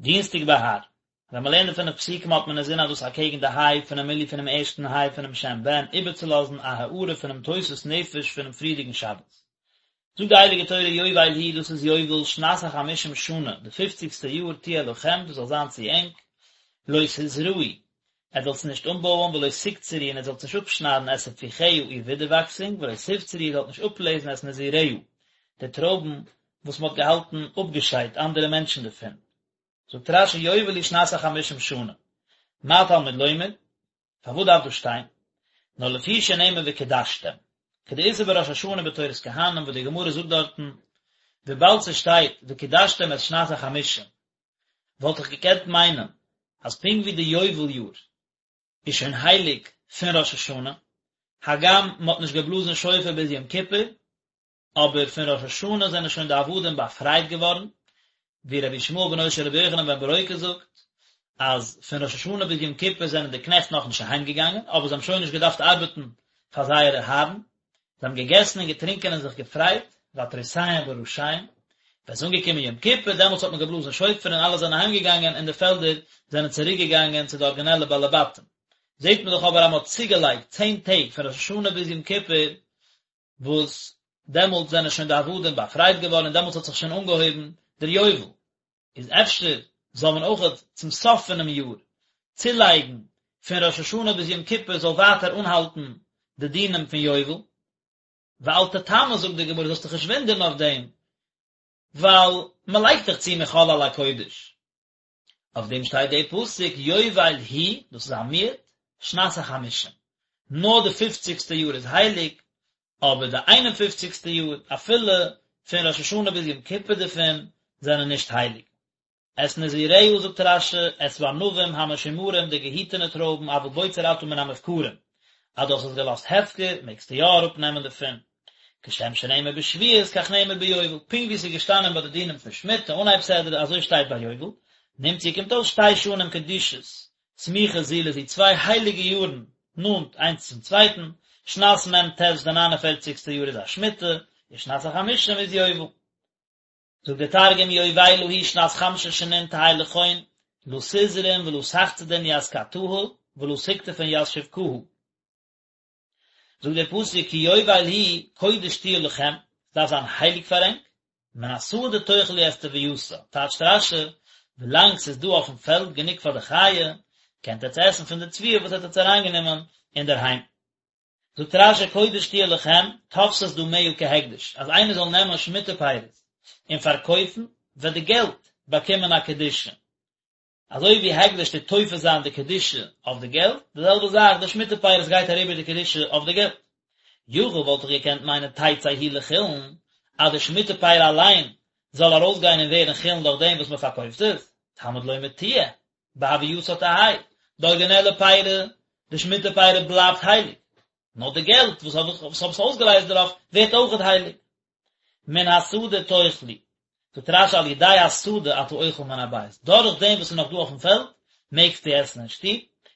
דינסטאג בהר. ווען מען לערנט די פינף פסוקים האט מען אינזין אז דאס אקעגן די היי פונעם מילוי פונעם ערשטן היי פונעם שם בן איבערצולאזן א הארה פונעם תוספות נפש פונעם פריערדיגן שבת. זאגט די הייליגע תורה יובל היא דאס איז יובל שנת החמישים שנה די פופציגסטע יאר תהיה לכם דאס זאל זיין צו ענק לא תזרעו עטס זאלטס נישט אנבויען ולא תקצרו און עטס זאלטס נישט אפשניידן את תפוחיה איר ווידערוואקסונג ולא תבצרו איר זאלט נישט אפלעזן את נזיריה די טרויבן וואס מען האט געהאלטן אפגעשיידט אנדערע מענטשן דערפון. זאגט רש"י יובל היא שנת החמישים שנה, מה תלמוד לומר? פארוואס דארף דאס שטיין? נאר לפי שנאמר וקדשתם, כדאיתא בראש השנה בתורת כהנים וואס די גמרא זאגט דארטן, וויבאלד ס'שטייט וקדשתם את שנת החמישים, וואלט איך געקענט מיינען אז פונקט ווי די יובל יאר איז שוין הייליג פון ראש השנה, הגם מ'האט נישט געבלאזן שופר ביז יום כיפור, אבער פון ראש השנה זענען שוין די עבדים באפרייט געווארן, ווי רבי ישמעאל בנו של רבי יוחנן בן ברוקה זאגט, אז פון ראש השנה ביז יום כיפור זענען די קנעכט נאכנישט אהיים געגאנגען, אבער זיי האבן שוין נישט געדארפט ארבעטן פאר זייערע הארן, זיי האבן געגעסן און געטרינקען און זיך געפרייט, ועטרותיהם בראשיהם, ווען ס'איז אנגעקומען יום כיפור, דעמאלטס האט מען געבלאזן שופר און אלע זענען אהיים געגאנגען און די פעלדער זענען צוריק געגאנגען צו די ארגינעלע בעלי בתים. זעט מען דאך אבער אז מען האט צוגעלייגט צען טעג פון ראש השנה ביז יום כיפור, וואס דעמאלטס זענען שוין די עבדים באפרייט געווארן און דעמאלטס האט זיך שוין אנגעהויבן דער יובל, איז אפשר זאל מען אויכעט צום סוף פונעם יאר צולייגן פון ראש השנה ביז יום כיפור זאל ווייטער אנהאלטן די דינים פון יובל, ואל תתמה זאגט די גמרא זאלסט דיך נישט וואונדערן אויף דעם, ווייל מען לייגט דאך צו מחול על הקודש. אויף דעם שטייט דער פסוק יובל היא, דאס איז א מיעוט, שנת החמישים, נאר די פופציגסטע יאר איז הייליג, אבער די איין און פופציגסטע יאר, אפילו פון ראש השנה ביז יום כיפור דערפון, זענען נישט הייליג. את נזיריה זאגט רש"י, את הענבים המשומרים די געהיטענע טרויבן אבל בוצר אתה מן המופקרים, אז דו האסט עס געלאזט הפקר מעגסטו יא אראפנעמען דערפון. כשם שנאמר בשביעית כך נאמר ביובל, פונקט ווי עס איז געשטאנען ביי די דינים פון שמיטה אנהייב סדרה אזוי שטייט ביי יובל, נמצאו קומט אויס שתי שנים קדושות סמוכות זו לזו צוויי הייליגע יארן נאנט איינס צום צווייטן, שנת מ"ט די ניין און פערציגסטע יאר איז א שמיטה, און שנת החמישים איז יובל. זאגט דער תרגום יובילא היא שנת חמשין שנין תהי לכון לא תזרעון ולא תחצדון ית קתהא ולא תקטפון ית שבקהא. זאגט דער פסוק כי יובל היא קודש תהיה לכם, עס דארף זיין הייליג פאר ענק, מן השדה תאכלו את תבואתה, טייטשט רש"י, ווילאנג ס'איז דא אויפן פעלד גענוג פאר די חיה, קענט עטץ עסן פון די תבואה וואס עטץ האט אריינגענומען אינדערהיים. זאגט רש"י קודש תהיה לכם, תופסת דמיה כהקדש, אז איינער זאל נעמען שמיטה פירות און פארקויפן, וועט די געלט באקומען א קדושה. אזוי ווי הקדש טוט תופס זיין די קדושה אויף די געלט, די זעלבע זאך די שמיטה פירות גייט אריבער די קדושה אויף די געלט. יכול וואלט איך געקענט מיינען תצא היא לחולין, אז די שמיטה פרי אליין זאל ארויסגיין און ווערן חולין דורך דעם וואס מען פארקויפט עס, תלמוד לומר תהיה, בהווייתה תהא, די ארגינעלע פרי, די שמיטה פרי בלייבט הייליג, נאר די געלט וואס האב עס אויסגעלייזט דערויף ווערט אויכעט הייליג. מן השדה תאכלו, זאגט רש"י על ידי השדה אתה אוכל מן הבית, דורך דעם וואס איז נאך דא אויפן פעלד, מעגסטו עסן אין שטוב,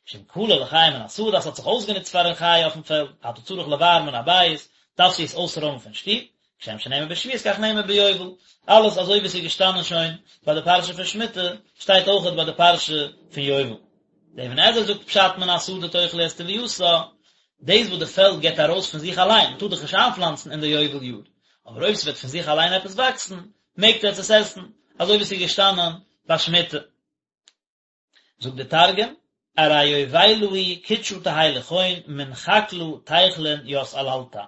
שאם כלה לחיה מן השדה, אז ס'האט זיך אויסגענוצט פארן חיה אויפן פעלד, אתה צריך לבער מן הבית, דארפסטו עס אויסרוימען פון שטוב, כשם שנאמר בשביעית כך נאמר ביובל, אלעס אזוי ווי עס איז געשטאנען שוין ביי די פרשה פון שמיטה, שטייט אויכעט ביי די פרשה פון יובל. דער אבן עזרא זאגט פשט מן השדה תאכלו את תבואתה, דאס וואס די פעלד געבט ארויס פון זיך אליין, מען טאר דאך נישט איינפלאנצן אין די יובל יאר, אבער אויב ס'וועט פון זיך אליין עפעס וואקסן, מעגט עטס עס עסן, אזוי ווי ס'איז געשטאנען ביי שמיטה. זאגט דער תרגום, ארי יובילא היא קודשא תהי לכון מן חקלא תיכלון ית עללתא.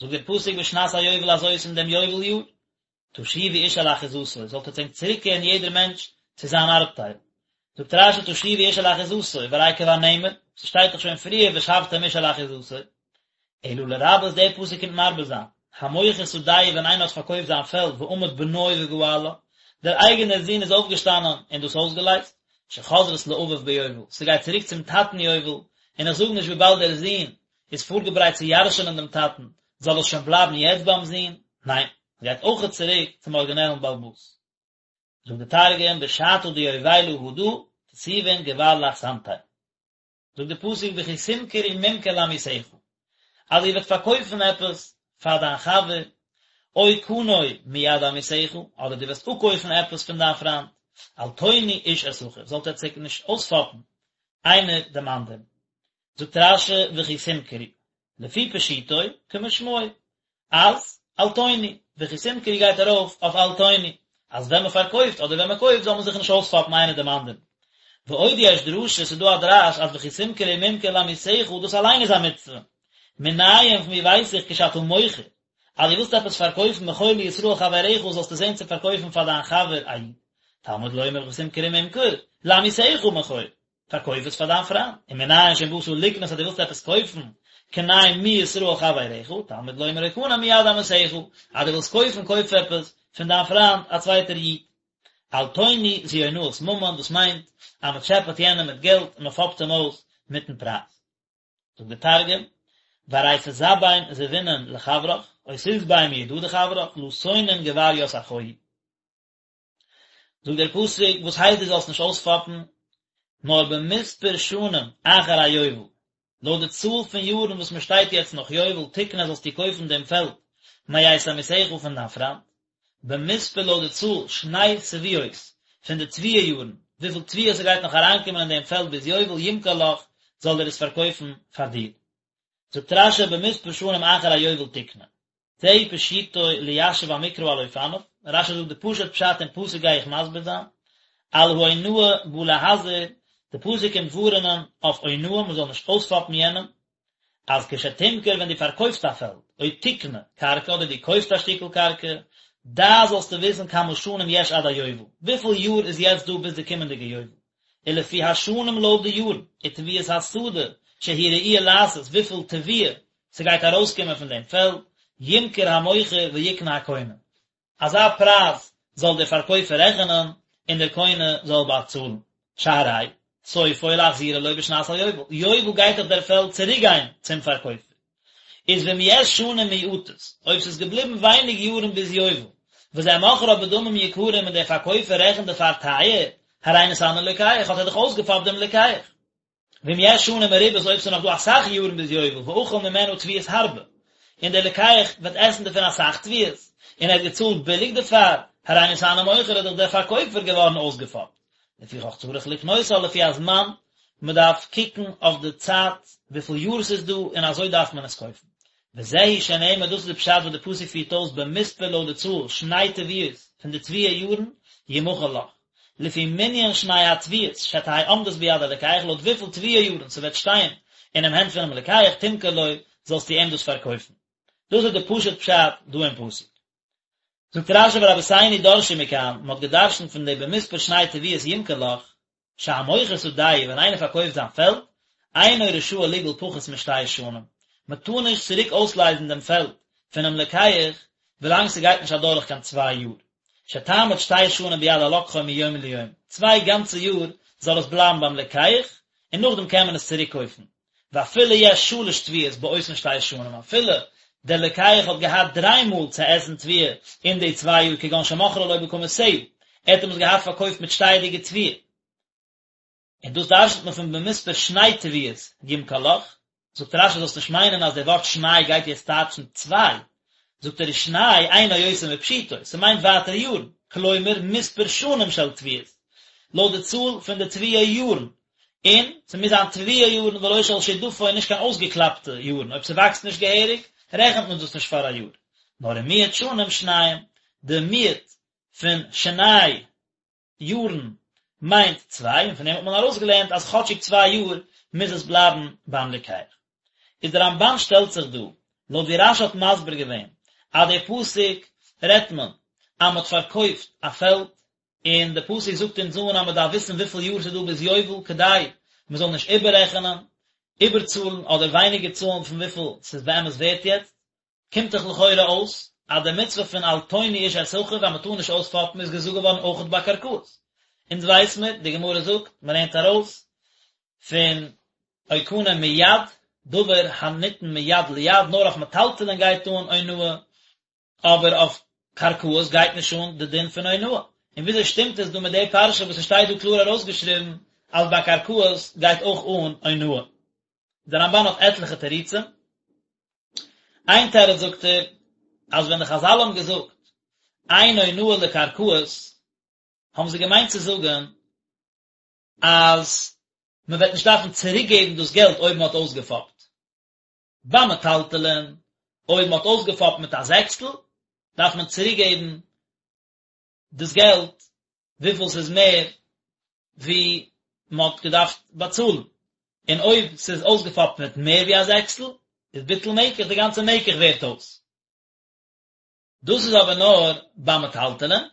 זאגט דער פסוק בשנת היובל הזאת אין דעם יובל יאר, תשובו איש אל אחוזתו, זאלט עטס ענק צוריקקערן יעדער מענטש צו זיין ארבטייל. זאגט רש"י תשובו איש אל אחוזתו, והרי כבר נאמר, ס'שטייט דאך שוין פריער ושבתם איש אל אחוזתו. אלא לרבות דער פסוק קומט מרבה זיין, המוכר שדהו ווען איינער האט פארקויפט זיין פעלד ועמד בנו וגאלה, דער אייגענער זון איז אויפגעשטאנען און דאס אויסגעלייזט, שחוזרת לאביו ביובל, ס'גייט צוריק צום טאטן יובל, און איך זאג נישט וויבאלד דער זון איז פארגעברייט צו ירש'ענען דעם טאטן, זאל עס שוין בלייבן יעצט ביים זון? ניין, עס גייט אויכעט צוריק צום ארגינעלן בעל הבית. זאגט דער תרגום, בשתא דיובילא הדא, תתובון גבר לאחסנתיה. זאגט דער פסוק וכי תמכרו ממכר לעמיתך, אז איר וועט פארקויפן עפעס פאר דיין חבר, או קנה מיד עמיתך, אדער דו וועסט אפקויפן עפעס פון דיין פריינט. אל תונו איש את אחיו, זאלט עטס זיך נישט אויספאפן איינער דעם אנדערן. זאגט רש"י וכי תמכרו, לפי פשוטו כמשמעו, אז אל תונו, וכי תמכרו גייט ארויף אויף אל תונו, אז ווען מען פארקויפט אדער ווען מען קויפט זאל מען זיך נישט אויספאפן איינער דעם אנדערן. ועוד יש דרשה, ס'איז דא א דרש אז וכי תמכרו ממכר לעמיתך דאס אליין איז א מצוה. מנין פון ווי ווייס איך כשאתה מוכר, אז דו ווילסט עפעס פארקויפן מכור לישראל חברך זאלסטו זען צו פארקויפן פאר דיין חבר א איד. תלמוד לומר וכי תמכרו ממכר, לעמיתך מכור. פארקויף עס פאר דיין פריינד, ומנין שאם באת לקנות אז דו ווילסט עפעס קויפן, קנה מישראל חברך, תלמוד לומר או קנה מיד עמיתך, אז דו ווילסט קויפן קויף עפעס פון דיין פריינד א צווייטער איד. אל תונו זו אונאת ממון, דאס מיינט אז מען טשעפעט יענעם מיט געלט און מען פאפט אים אויס מיטן פרייז. זאגט דער תרגום, וארי תזבין זבינין לחברך, או תזבי מידא דחברך, לא תונון גבר ית אחוהי. זאגט דער פסוק, וואס הייסט דו זאלסט נישט אויספאפן, נאר במספר שנים אחר היובל, לויט די צאל פון יארן וואס מען שטייט יעצט נאך יובל, תקנה זאלסטו קויפן דעם פעלד מאת עמיתך פון דיין פריינט, במספר לויט די צאל שני תבואות פון די תבואה יארן, וויפיל תבואה ס'גייט נאך אריינקומען אין דעם פעלד ביז יובל, ימכור לך, זאל ער עס פארקויפן פאר דיר. זאגט רש"י במספר שנים אחר היובל תקנה. זהו פשוטו ליישב המקרא על אופניו, רש"י זאגט די פשוט פשט אין פסוק גיי איך מסביר זיין, על האונאה בא להזהיר, די פסוק קומט ווארענען אויף אונאה מען זאל נישט אויספאפן יענעם, אז כשתמכור ווען דו פארקויפסט א פעלד, או תקנה קרקע אדער דו קויפסט א שטיקל קרקע, דע זאלסטו וויסן כמה שנים יש עד היובל, וויפיל יאר איז יעצט דא ביז די קומענדיגע יובל, ולפי השנים לויט די יארן, ותבואת השדה שהיא ראויה לעשות וויפיל תבואה ס'גייט ארויסקומען פון דעם פעלד, ימכור המוכר ויקנה הקונה. אזא פרייז זאל דער פארקויפער רעכענען, און דער קונה זאל באצאלן. שהרי סופו להחזירה לו בשנת היובל, יובל גייט דאך דער פעלד צוריקגיין צום פארקויפער. איז ואם יש שנים מועטות, אויב ס'איז געבליבן ווייניג יארן ביז יובל, וזה מוכרה בדמים יקרים און דער פארקויפער רעכנט דערפאר טייער, הרי נתענה לוקח, האט ער דאך אויסגעפאפט דעם לוקח. ואם יש שנים מרובות אויב ס'איז נאך דא אסאך יארן ביז יובל ואכל ממנה תבואות הרבה, און דער לוקח וועט עסן דערפון אסאך תבואות, און ער האט געצאלט ביליג דערפאר, הרי נתענה מוכר איז דאך דער פארקויפער געווארן אויסגעפאפט. לפיכך צריך לקנותה לפי הזמן, מ'דארף קוקן אויף די צייט וויפיל יאר ס'איז דא און אזוי דארף מען עס קויפן. וזהו שנאמר דאס איז די פשט וואס די פסוק פירט אויס במספר לויט די צאל שני תבואות פון די תבואה יארן ימכר לך. לפי מנין שני התבואות שתהא עומדת ביד הלוקח לויט וויפיל תבואה יארן ס'וועט שטיין אינעם הענט פונעם לוקח תמכור לו זאלסטו אים דאס פארקויפן. דאס איז די פשוט פשט דא אין פסוק. זאגט רש"י ורבותינו דרשו מכאן, מ'האט געדרשנט פון די במספר שני תבואות ימכור לך, שהמוכר שדהו ווען איינער פארקויפט זיין פעלד, אינו רשאי לגאול פחות משתי שנים, מ'טאר נישט צוריק אויסלייזן דעם פעלד פונעם לוקח ווילאנג ס'גייט נישט אדורך קיין צוויי יאר. שתעמוד שתי שנים ביד הלוקחו מיום ליום, צוויי גאנצע יאר זאל עס בלייבן ביים לוקח, און נאכדעם קען מען עס צוריק קויפן. ואפילו יש שלש תבואות באותן שתי שנים, אפילו דער לוקח האט געהאט דריי מאל צו עסן תבואה אין די צוויי יאר כגון שמכרה לו בקמותיה, ער האט אים עס געהאט פארקויפט מיט שטייעדיגע תבואה. און דאס דרש'נט מען פון במספר שני תבואות ימכור לך, זאגט רש"י זאלסט נישט מיינען אז דער ווארט שני גייט יעצט טייטשן צוויי, זאגט ער ושני אינו יותר מפשוטו, ס'מיינט ווייטער יארן, כלומר מספר שנים של תבואות, לויט די צאל פון די תבואה יארן, און ס'מוז זיין תבואה יארן ולא של שדפון נישט קיין אויסגעקלאפטע יארן, אויב ס'וואקסט נישט געהעריג רעכנט מען דאס נישט פאר א יאר, נאר ומיעוט שנים שניים, די מיעוט פון שני יארן מיינט צוויי, און פון דעם האט מען ארויסגעלערנט אז כאטשיג צוויי יאר מוז עס בלייבן ביים לוקח. איז דער רמב"ן שטעלט זיך דא, לויט ווי רש"י האט מסביר געווען, אז דער פסוק רעדט מען אז מען האט פארקויפט א פעלד, און דער פסוק זאגט אונז אן אז מען דארף וויסן וויפיל יאר ס'איז דא ביז יובל כדי מען זאל נישט איבעררעכענען, איבערצאלן אדער ווייניגער צאלן פון וויפיל ס'איז באמת ווערט יעצט. קומט דאך לכאורה אויס אז די מצוה פון אל תונו איש את אחיו אז מען טאר נישט אויספאפן איז געזאגט געווארן אויכעט ביי קרקעות. אונז ווייס מיר, די גמרא זאגט, מען לערנט ארויס פון או קנה מיד, דבר הניתן מיד ליד, נאר אויף מטלטלין גייט אן אונאה, אבער אויף קרקעות גייט נישט אן די דין פון אונאה. און וויאזוי שטימט עס דא מיט די פרשה וואס עס שטייט דא קלאר ארויסגעשריבן אז ביי קרקעות גייט אויך אן אונאה? דער רמב"ן האט עטליכע תירוצים. איין תירוץ זאגט ער, אז ווען די חז"ל האבן געזאגט אין אונאה לקרקעות, האבן זיי געמיינט צו זאגן אז מען וועט נישט דארפן צוריקגעבן דאס געלט אויב מען האט אויסגעפאפט. ביי מטלטלין, אויב מען האט אויסגעפאפט מיט א זעקסטל, דארף מען צוריקגעבן דאס געלט וויפיל ס'איז מער ווי מען האט געדארפט באצאלן, און אויב ס'איז אויסגעפאפט מיט מער ווי א זעקסטל, איז ביטול מקח, די גאנצע מקח ווערט אויס. דאס איז אבער נאר ביי מטלטלין,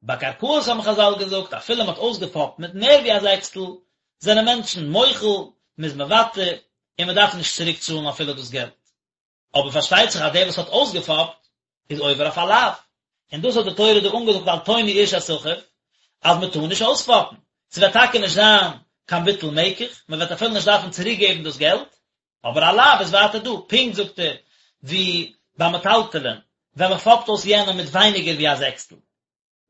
ביי קרקעות האבן חזל געזאגט אפילו מען האט אויסגעפאפט מיט מער ווי א זעקסטל, זענען מענטשן מוחל, מען איז מוותר, און מען דארף נישט צוריק צאלן אפילו דאס געלט. אבער פארשטייט זיך אז דער וואס האט אויסגעפאפט איז עובר אויף א לאו, און דאס האט די תורה דא אנגעזאגט אל תונו איש את אחיו, אז מען טאר נישט אויספאפן, ס'וועט טאקע נישט זיין קיין ביטול מקח, מען וועט אפילו נישט דארפן צוריק געבן דאס געלט, אבער א לאו איז ווייטער דא, פונקט זאגט ער ווי ביי מטלטלין, ווען מען פאפט אויס יענעם מיט ווייניגער ווי א זעקסטל,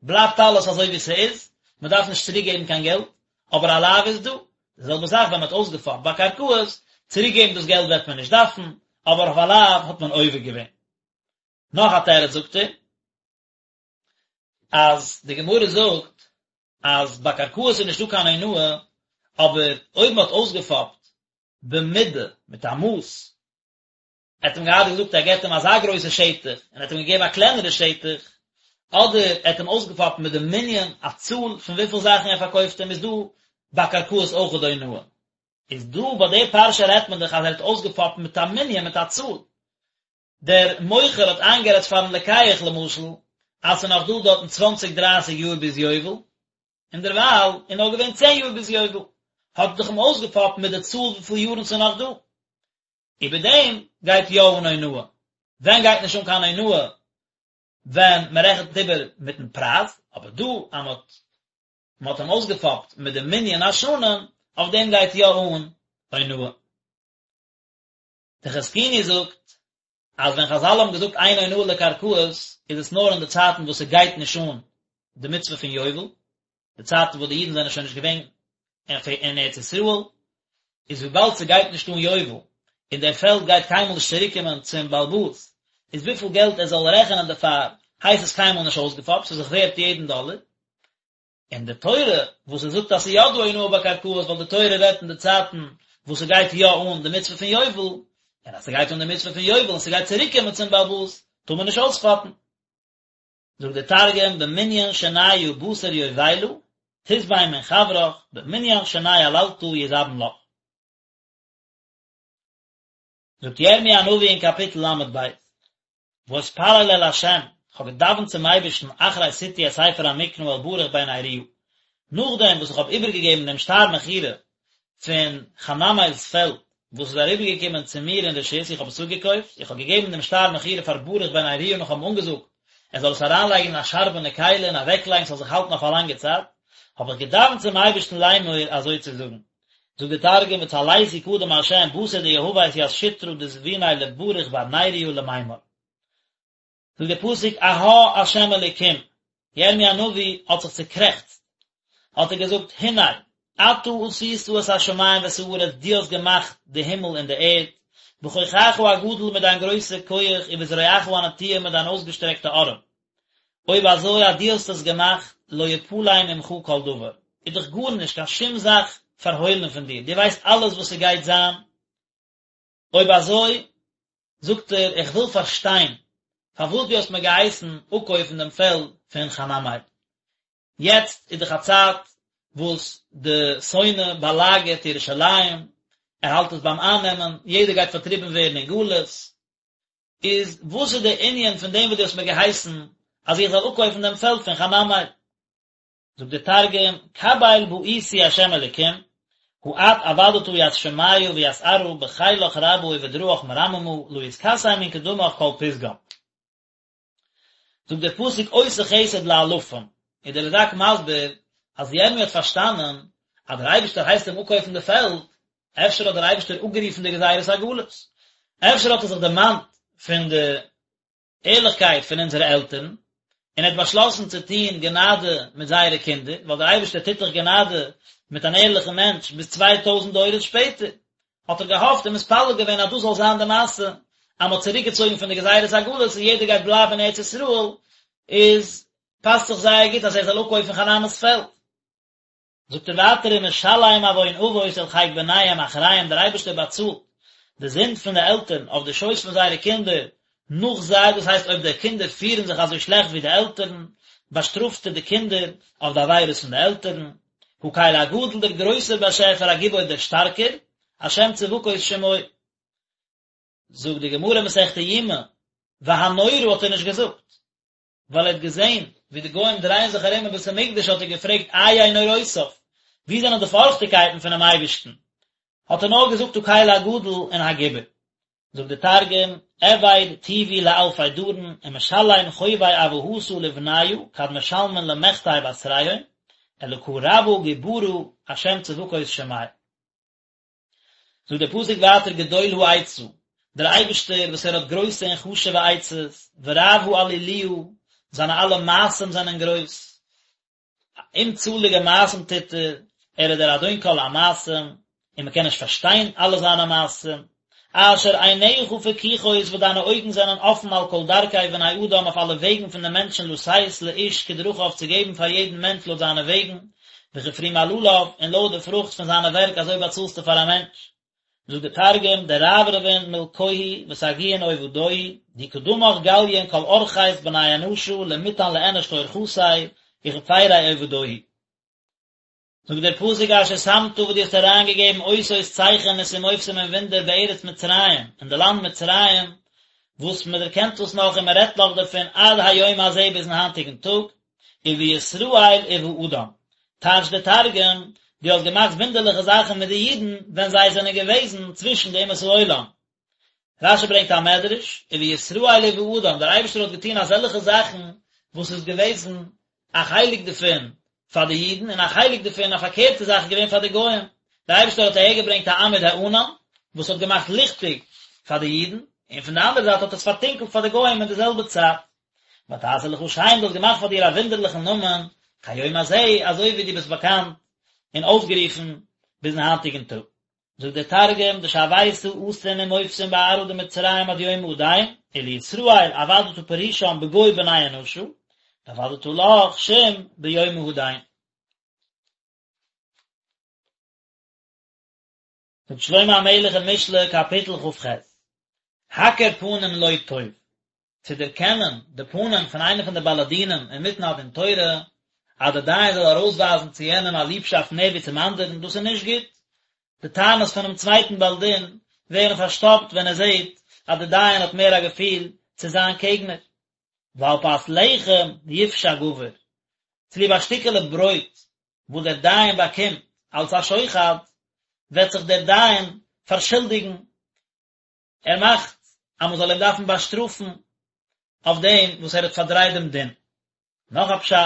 בלייבט אלעס אזוי ווי ס'איז, מען דארף נישט צוריק געבן קיין געלט, אבער א לאו איז דא, די זעלבע זאך ווען מען האט אויסגעפאפט ביי קרקעות, צוריק געבן דאס געלט וועט מען נישט דארפן, אבער אויף א לאו האט מען עובר געווען. נאך א תירוץ זאגט ער, אז די גמרא זאגט אז ביי קרקעות איז נישטא קיין אונאה, אבער אויב מען האט אויסגעפאפט במידה, מיט א מאס, ער האט אים געהאט געזאגט ער געבט אים אזא גרויסע שטח, און ער האט אים געגעבן א קלענערע שטח, אדער ער האט אים אויסגעפאפט מיט די מנין, א צאל פון וויפיל זאכן ער פארקויפט אים, איז דא ביי קרקעות אויך דא אונאה. איז דא ביי די פרשה רעדט מען דאך אז ער האט אויסגעפאפט מיט א מנין, מיט א צאל. דער מוכר האט איינגערעדט פארן לוקח למשל אז ס'איז נאך דא דארטן צוואנציג דרייסיג יאר ביז יובל, און דערווייל איז נאר געווען צען יאר ביז יובל, האט ער דאך אים אויסגעפאפט מיט די צאל וויפיל יארן ס'איז נאך דא. איבער דעם גייט יא אן אונאה. ווען גייט נישט אן קיין אונאה? ווען מען רעכנט איבער מיטן פרייז, אבער דא אז מען האט מען האט אים אויסגעפאפט מיט די מנין השנים, אויף דעם גייט יא אן אונאה. דער חזקוני זאגט אז ווען חזל האבן געזאגט אין אונאה לקרקעות איז עס נאר אין די צייטן וואס ס'גייט נישט אן די מצוה פון יובל, די צייטן וואס די אידן זענען שוין נישט געווען אין ארץ ישראל, איז וויבאלד ס'גייט נישט אן יובל און דער פעלד גייט קיינמאל נישט צוריקקומען צום בעל הבית, איז וויפיל געלט ער זאל רעכענען דערפאר הייסט עס קיינמאל נישט אויסגעפאפט, ס'איז זיך ווערט יעדן דאלער. און די תורה וואס עס זאגט אז ס'איז יא דא אונאה ביי קרקעות ווייל די תורה רעדט אין די צייטן וואס ס'גייט יא אן די מצוה פון יובל, און אז ס'גייט אן די מצוה פון יובל און ס'גייט צוריק קומען צום בעל הבית, טאר מען נישט אויספאפן. זאגט דער תרגום, במנין שניא בתר יובילא, תזבין מן חברך, במנין שני עללתא יזבין לך. זאגט ירמי' הנביא אין קאפיטל ל"ב, ואתפלל אל ה', איך האב געדאווענט צום אייבערשטן אחרי שתי את ספר המקרא אל ברוך בן נריה, נאכדעם וואס איך האב איבערגעגעבן דעם שטר מכירה פון חנמאל'ס פעלד וואס איז אריבערגעקומען צו מיר אין רשות, איך האב עס אפגעקויפט, איך האב געגעבן דעם שטר מכירה פאר ברוך בן נריה און איך האב אים אנגעזאגט ער זאל עס אריינלייגן אין א שארבענע כלי און אוועקלייגן ס'זאל זיך האלטן אויף א לאנגע צייט, האב איך געדאווענט צום אייבערשטן לאמור אזוי צו זאגן. זאגט דער תרגום וצליתי קדם ה' בתר דיהבית ית שטרא דזביניה לברוך בר נריה למימר. זאגט דער פסוק אהה ה' אלוקים, ירמי' הנביא האט זיך צוקרעכצט, האט ער געזאגט הנה אתה עשית את השמים ואת הארץ דו האסט געמאכט די הימל און די ערד, בכוחך הגדול מיט דיין גרויסע כח ובזרועך הנטויה מיט דיין אויסגעשטרעקטע ארעם, אויב אזוי אז דו האסט עס געמאכט, לא יפלא ממך כל דבר, איז דאך גארנישט, קיין שום זאך פארהוילן פון דיר, דו ווייסט אלעס וואס ס'גייט זיין, אויב אזוי, זאגט ער, איך וויל פארשטיין, פארוואס דו האסט מיר געהייסן אפקויפן דעם פעלד פון חנמאל. יעצט איז דאך א צייט וואס די שונא באלאגערט ירושלים, ער האלט עס ביים אייננעמען, יעדער גייט פארטריבן ווערן אין גלות, איז וואס איז דער ענין פון דעם וואס דו האסט מיר געהייסן אז איך זאל אפקויפן דעם פעלד פון חנמאל? זאגט דער תרגום, קביל בעיתי ה' אלקים, הא את עבדתא ית שמיא וית ארעא בחילך רבא ובדרעך מרממא, לא יתכסי מן קדמך כל פתגם. זאגט דער פסוק עושה חסד לאלפים, איז דער רד"ק מסביר אז ירמי' האט פארשטאנען אז דער אייבערשטער הייסט אים אפקויפן די פעלד, אפשר האט דער אייבערשטער אפגערופן די גזירת הגלות, אפשר האט ער זיך דערמאנט פון די ערליכקייט פון אונזערע עלטערן, און ער האט באשלאסן צו טון גענאדע מיט זייערע קינדער, ווייל דער אייבערשטער טוט דאך גענאדע מיט אן ערליכן מענטש ביז 2000 דורות שפעטער. האט ער געהאפט און מתפלל געווען אז דאס זאל זיין די מעשה, אז מען האט צוריק געצויגן פון די גזירת הגלות און יעדער גייט בלייבן אין ארץ ישראל, איז. פאסט זיך זייער גוט אז ער זאל אפקויפן חנני'ס פעלד. זאגט ער ווייטער ומשלם עון אבות אל חיק בניהם אחריהם דער אייבערשטער באצאלט די זינד פון די עלטערן אויף די שויס פון זייערע קינדער נאך זיי, דאס הייסט אויב די קינדער פירן זיך אזוי שלעכט ווי די עלטערן, באשטראפט ער די קינדער אויף די עבירות פון די עלטערן. הקל הגדול דער גרויסער באשעפער הגיבור דער שטארקער, השם צבקות שמו. זאגט די גמרא מסכת יומא, והנורא האט ער נישט געזאגט, ווייל ער האט געזען ווי די גוים דרייען זיך ארום אין בית המקדש האט ער געפרעגט איה נוראותיו, וואו זענען די פארכטיגקייטן פונעם אייבערשטן, האט ער נאר געזאגט הקל הגדול און הגיבור. זאגט די תרגום, עביד טיבו לאלפי דרין, ומשלים חובי אבהתא לבניא כד משלמין למחטי בתריהון, אלקא רבא גוברא השם צבקות שמיה. זאגט דער פסוק ווייטער גדול העצה, דער אייבערשטער וואס ער האט גרויסע און חשוב'ע עצות, ורב העליליה, זיינע אלע מעשים זענען גרויס, אומצאליגע מעשים טוט ער, ער איז דער אדון כל המעשים, און מען קען נישט פארשטיין אלע זיינע מעשים, אשר עיניך פקוחות וואס דיינע אויגן זענען אפן על כל דרכי בני אדם אויף אלע וועגן פון די מענטשן לתת לאיש כדרכיו צו געבן פאר יעדן מענטש לויט זיינע וועגן, וכפרי מעלליו, און לויט די פרוכט פון זיינע ווערק אזוי באצאלסטו פאר א מענטש. זאגט דער תרגום, דרברבין מלכוהי וסגיאין עובדוהי, די קדמך גליין כל ארחית בני אנשא למיתן לאנש כאורחתיה וכפריה עובדוהי. זאגט דער פסוק אשר שמת וואס דו האסט אריינגעגעבן אותות צייכענעס ומופתים און וואונדער בארץ מצרים, אין די לאנד מצרים, וואס מען דערקענט דאס נאך און מען רעדט נאך דערפון עד היום הזה ביזן היינטיגן טאג, ובישראל ובאדם, טייטשט דער תרגום, דו האסט געמאכט וואונדערליכע זאכן מיט די אידן ווען זיי זענען געוועזן צווישן די אומות העולם. רשי ברענגט א מדרש, ובישראל ובאדם, דער אייבערשטער האט געטון אזעלכע זאכן וואס איז געוועזן א חלק דערפון פאר די אידן און א חלק דערפון א פארקערטע זאך איז געווען פאר די גוים, דער אייבערשטער האט אהערגעברענגט א עמוד הענן וואס האט געמאכט ליכטיג פאר די אידן, און פון די אנדערע זייט האט עס פארטונקלט פאר די גוים אין די זעלבע צייט. ותעשה לך שם, דו האסט געמאכט פאר דיר א וואונדערליכן נאמען, כהיום הזה, אזוי ווי דו ביסט באקאנט און אויסגערופן ביזן היינטיגן טאג. זאגט דער תרגום, דשוית אתין ומופתין בארעא דמצרים עד יומא הדין, ולישראל עבדת פרישן בגו בני אנשא, דעבדת לך שם ביומא הדין. זאגט שלמה המלך אין משלי קאפיטל כ"ח, הכר פנים לא טוב, צו דערקענען די פנים פון איינער פון די בעלי דינים אינמיטן א דין תורה, אז דער דיין זאל ארויסווייזן צו יענעם א ליבשאפט מער ווי צום אנדערן, דאס איז נישט גוט. די טענות פונעם צווייטן בעל דין ווערן פארשטאפט ווען ער זעט אז דער דיין האט מער א געפיל צו זיין קעגנער. ועל פת לחם יפשע גבר, צוליב א שטיקעלע ברויט וואס דער דיין באקומט אלס א שוחד, וועט זיך דער דיין פארשולדיגן, ער מאכט אז מען זאל אים דארפן באשטראפן אויף דעם וואס ער האט פארדרייט דעם דין. נאך א פשט,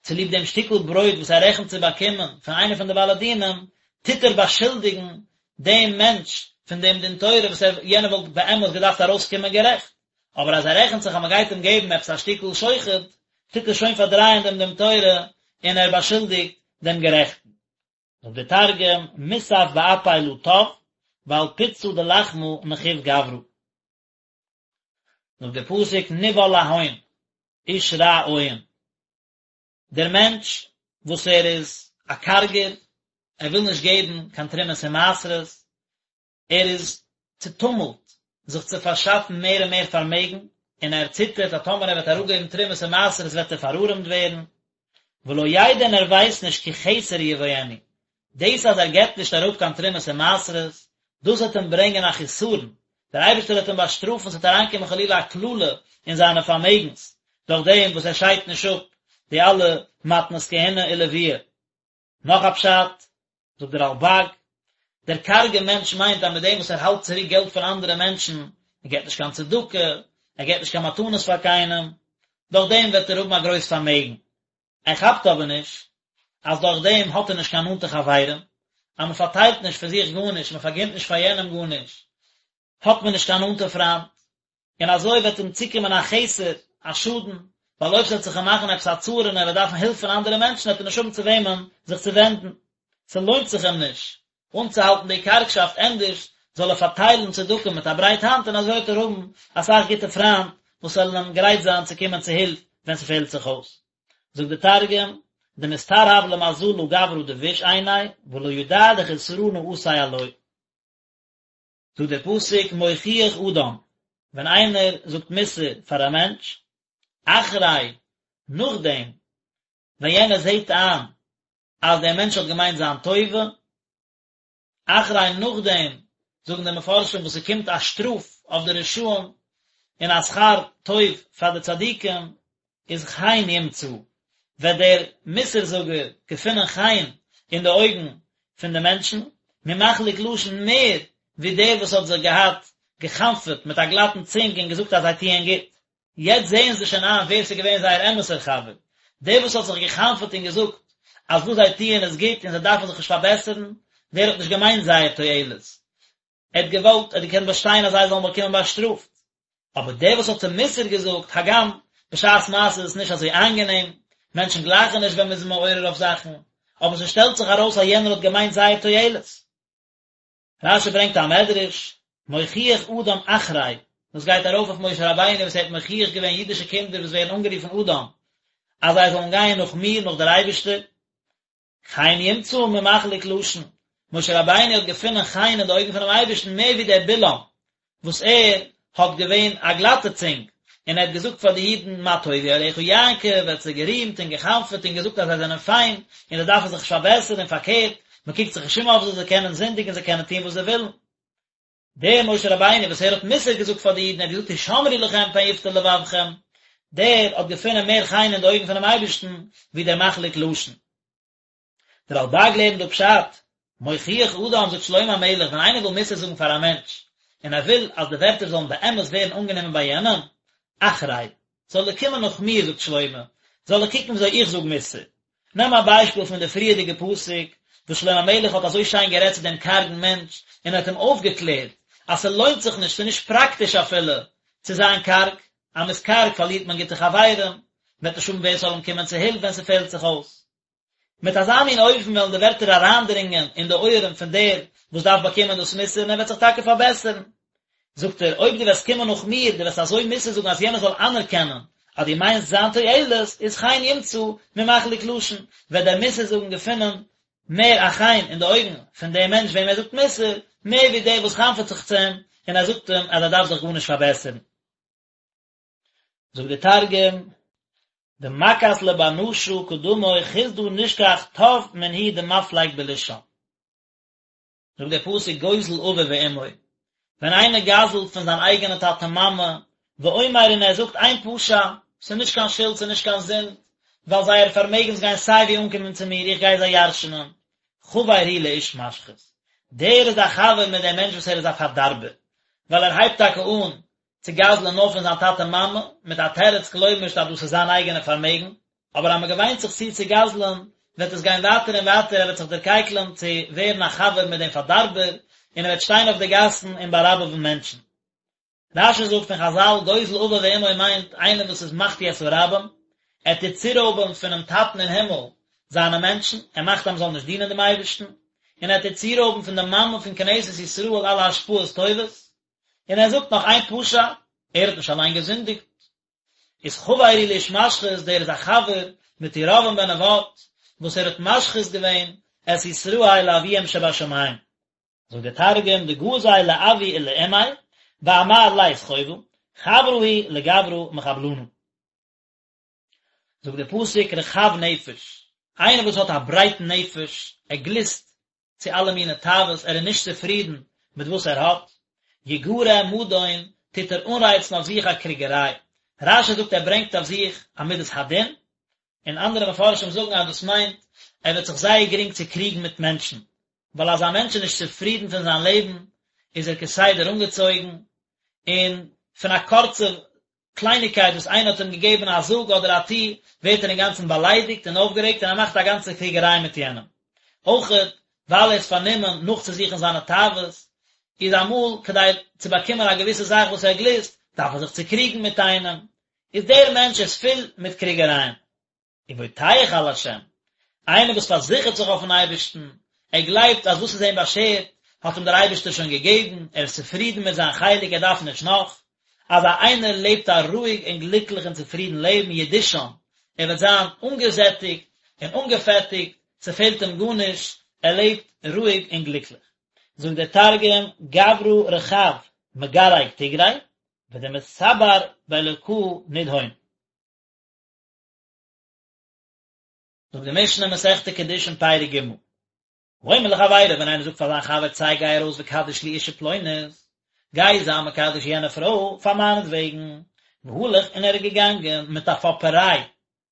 צוליב דעם שטיקל ברויט וואס ער רעכנט צו באקומען פון איינער פון די בעלי דינים, טוט ער באשולדיגן דעם מענטש פון דעם דין תורה וואס ער, יענער וואלט באמת געדארפט ארויסקומען גערעכט, אבער אז ער רעכנט זיך אז מען גייט אים געבן עפעס א שטיקל שוחד, טוט ער שוין פארדרייען דעם דין תורה און ער באשולדיגט דעם גערעכטן. זאגט דער תרגום, מוסף באפי לא טב, ועל פיצא דלחמא נחיב גברא. זאגט דער פסוק נבהל להון, איש רע עין. דער מענטש וואס ער איז א קארגער, ער וויל נישט געבן קיין תרומות און מעשרות, ער איז צעטומלט זיך צו פארשאפן מער און מער פארמעגן, און ער ציטערט אז טאמער ער וועט אראפגעבן תרומות און מעשרות וועט ער פארארעמט ווערן, ולא ידע און ער ווייסט נישט כי חסר יבואנו, דאס אז ער געבט נישט אראפ קיין תרומות און מעשרות, דאס וועט אים ברענגען א חיסרון, דער אייבערשטער וועט אים באשטראפן, ס'וועט אריינקומען חלילה א קללה אין זיינע פארמעגנס, דורך דעם וואס ער שיידט נישט אפ די אלע מתנות כהונה ולוויה. נאך א פשט, זאגט דער רלבג, דער קארגער מענטש מיינט אז מיט דעם וואס ער האלט צוריק געלט פון אנדערע מענטשן, ער געבט נישט קיין צדקה, ער געבט נישט קיין מתנות פאר קיינעם, דורך דעם וועט ער האבן א גרויס פארמעגן. ער כאפט אבער נישט אז דורך דעם האט ער נישט קיין נאנטע חברים, אז מען פארטיילט נישט פון זיך גארנישט, מען פארגינט נישט פאר יענעם גארנישט, האט מען נישט קיין נאנטע פריינט, און אזוי וועט אים צוקומען א חסר, א שאדן, ווייל אויב ס'וועט זיך אים מאכן עפעס א צרה און ער וועט דארפן הילף פון אנדערע מענטשן וועט ער נישט האבן צו וועמען זיך צו ווענדן. ס'לוינט זיך אים נישט אנצוהאלטן די קארגשאפט, ענדערש זאל ער פארטיילן צדקה מיט א ברייט האנט און אזוי וועט ער האבן אסאך גוטע פריינט וואס וועלן אים גרייט זיין צו קומען צו הילף ווען ס'פעלט זיך אויס. זאגט די תרגום, דמסתרהב למזלא גברא דביש עיניה, ולא ידע דחסרנא אתי עלוי. זאגט דער פסוק מוכיח אדם, ווען איינער זאגט מוסר פאר א מענטש, אחרי, נאכדעם ווען יענער זעט איין אז דער מענטש האט געמיינט זיין טובה, אחרי נאכדעם, זאגן די מפרשים וואס ס'קומט א שטראף אויף די רשעים און א שכר טוב פאר די צדיקים, איז חן ימצא, וועט דער מוסר זאגער געפינען חן אין די אויגן פון די מענטשן, ממחליק לשון מער ווי דער וואס האט זיך געהאט גע'חנפ'עט מיט א גלאטן צונג און געזאגט אז זיי טוען גוט. יעצט זעען זיי שוין איין ווער ס'איז געווען זייער אמת'ער חבר, דער וואס האט זיך גע'חנפ'עט און געזאגט אז וואס זיי טוען איז גוט און זיי דארפן זיך נישט פארבעסערן, דער האט נישט געמיינט זייער תועלת, ער האט געוואלט, ער האט געקענט באשטיין אז זיי זאלן באקומען באשטראפט. אבער דער וואס האט זיי מוסר געזאגט, הגם בשעת מעשה איז עס נישט אזוי איינגענעם, מענטשן גלייכן נישט ווען מ'איז מעורר אויף זאכן, אבער ס'שטעלט זיך ארויס אז יענער האט געמיינט זייער תועלת. רש"י ברענגט א מדרש, מוכיח אדם אחרי, דאס גייט ארויף אויף משה רבינו וואס ער האט מוכיח געווען אידישע קינדער וואס ווערן אנגערופן אדם, אז זיי זאלן גיין נאך מיר, נאך דער אייבערשטער, חן ימצא ממחליק לשון, משה רבינו האט געפונען חן אין די אויגן פונעם אייבערשטן מער ווי דער בלעם וואס ער האט געווען א גלאטע צונג, און ער האט געזאגט פאר די אידן מה טובו אוהליך יעקב, ער האט זיי גערימט און גע'חנפ'עט און געזאגט אז זיי זענען פיין, און זיי דארפן זיך נישט פארבעסערן, און פארקערט, מען קוקט זיך נישט אום אויף זיי, זיי קענען זינדיגן, זיי קענען טון וואס זיי ווילן. דער משה רבינו וואס ער האט מוסר געזאגט פאר די אידן, ער האט געזאגט הישמרו לכם פן יפתה לבבכם, דער האט געפונען מער חן אין די אויגן פונעם אייבערשטן ווי דער מחליק לשון. דער רלב"ג לערנט דא פשט, מוכיח אדם זאגט שלמה המלך ווען איינער וויל מוסר זאגן פאר א מענטש, און ער וויל אז די ווערטער זאלן באמת ווערן אנגענומען ביי יענעם, אחרי, זאל ער קומען נאך מיר זאגט שלמה, זאל ער קוקן וויאזוי איך זאג מוסר. נעם א ביישפיל פון די פריערדיגע פסוק, וואס שלמה המלך האט אזוי שיין גערעדט צו דעם קארגן מענטש, און ער האט אים אויפגעקלערט אז ס'לוינט זיך נישט, ס'איז נישט פראקטיש אפילו, צו זיין קארג, אז מ'איז קארג פארלירט מען גוטע חברים, מ'וועט נישט האבן ווער ס'זאל אים קומען צו הילף ווען ס'פעלט זיך אויס. מיט אזא מין אופן וועלן די ווערטער אריינדרינגען אין די אויערן פון דער וואס דארף באקומען דאס מוסר און ער וועט זיך טאקע פארבעסערן. זאגט ער, אויב דו וועסט קומען נאך מיר, דו וועסט אזוי מוסר זאגן אז יענער זאל אנערקענען אז דו מיינסט זיין תועלת, איז חן ימצא ממחליק לשון, וועט דער מוסר זאגן געפינען מער א חן אין די אויגן פון דעם מענטש וועם ער זאגט מוסר, מער ווי דער וואס חנפ'עט זיך צו אים און ער זאגט אים אז ער דארף זיך גארנישט פארבעסערן. זאגט דער תרגום, דמכס לבר נשא קדמוי חסדא נשכח טב מן הוא דמפליג בלישן. זאגט דער פסוק גוזל אביו ואמו, ווען איינער גזל'ט פון זיין אייגענע טאטע מאמע, ואומר און ער זאגט אין פשע, ס'איז נישט קיין שולד ס'איז נישט קיין זינד, ווייל זייערע פארמעגנס גייען סיי ווי אנקומען צו מיר, איך גיי זיי ירש'נען, חבר הוא לאיש משחית, דער איז א חבר מיט דעם מענטש וואס ער איז א פארדארבער, ווייל ער הייבט טאקע אן צו גזל'ען נאר פון זיין טאטע מאמע, מיט א תירוץ כלומר'שט אז דאס איז זיין אייגענע פארמעגן, אבער אז מען געוויינט זיך צו צו גזל'ען, וועט עס גיין ווייטער און ווייטער, ער וועט זיך דערקייקלען צו ווערן א חבר מיט דעם פארדארבער, און ער וועט שטיין אויף די גאסן און באראבעווען מענטשן. רש"י זאגט פון חז"ל, גוזל אביו ואמו מיינט איינער וואס איז מחטיא את הרבים, ער טוט צורויבען פונעם טאטן אין הימל זיינע מענטשן, ער מאכט אז מען זאל נישט דינען דעם אייבערשטן, און ער טוט צורויבן פון די מאמע פון כנסת ישראל אלע השפעות טובות, און ער זאגט נאך אין פשע, ער האט נישט אליין געזינדיגט, איז חבר הוא לאיש משחית, דער איז א חבר מיט ירבעם בן נבט, וואס ער האט משחית געווען את ישראל לאביהם שבשמים. זאגט דער תרגום, דגזיל לאבוי ולאמיה, ואמר לית חובא, חברא הוא לגברא מחבלנא. זאגט דער פסוק רחב נפש, איינער וואס האט א ברייטן נפש, ער גליסט צו אלע מיני תאוות, ער איז נישט צופרידן מיט וואס ער האט, יגרה מדון, טוט ער אנרייצן אויף זיך א קריגעריי. רש"י זאגט ער ברענגט אויף זיך א מידת הדין, און אנדערע מפרשים זאגן אז דאס מיינט ער וועט זיך זייער גרינג צוקריגן מיט מענטשן, ווייל אז א מענטש איז נישט צופרידן פון זיין לעבן, איז ער כסדר אנגעצויגן, און פון א קורצע קלייניקייט וואס איינער האט אים געגעבן א זאג אדער א טו, ווערט ער אינגאנצן באליידיגט און אויפגערעגט און ער מאכט א גאנצע קריגעריי מיט יענעם. אויכעט, ווייל ער איז פארנומען נאכצוזוכן זיינע תאוות, איז אמאל כדי צו באקומען א געוויסע זאך וואס ער גליסט, דארף ער זיך צוקריגן מיט איינעם. איז דער מענטש איז פול מיט קריגערייען. ובוטח על השם, איינער וואס פארזיכערט זיך אויפן אייבערשטן, ער גלייבט אז וואס איז אים באשערט האט אים דער אייבערשטער שוין געגעבן, ער איז צופרידן מיט זיין חלק, ער דארף נישט נאך, אזא איינער לעבט א רואיג און גליקליך און צופרידן לעבן, ידושן, ער וועט זיין אנגעזעטיגט און אנגעפעטיגט, ס'פעלט אים גארנישט, ער לעבט רואיג און גליקליך. זאגט דער תרגום, גברא רחב מגרג תיגרי, ודמסבר באלקא נדהון. זאגט די משנה מסכת קידושין פרק ג', האומר לחבירו ווען איינער זאגט פאר זיין חבר צא גיי ארויס וקדש לי אישה פלונית, גיי זיי מקדש יענע פרוי פאר מיינעטוועגן, והלך און ער איז געגאנגען מיט א פאפעריי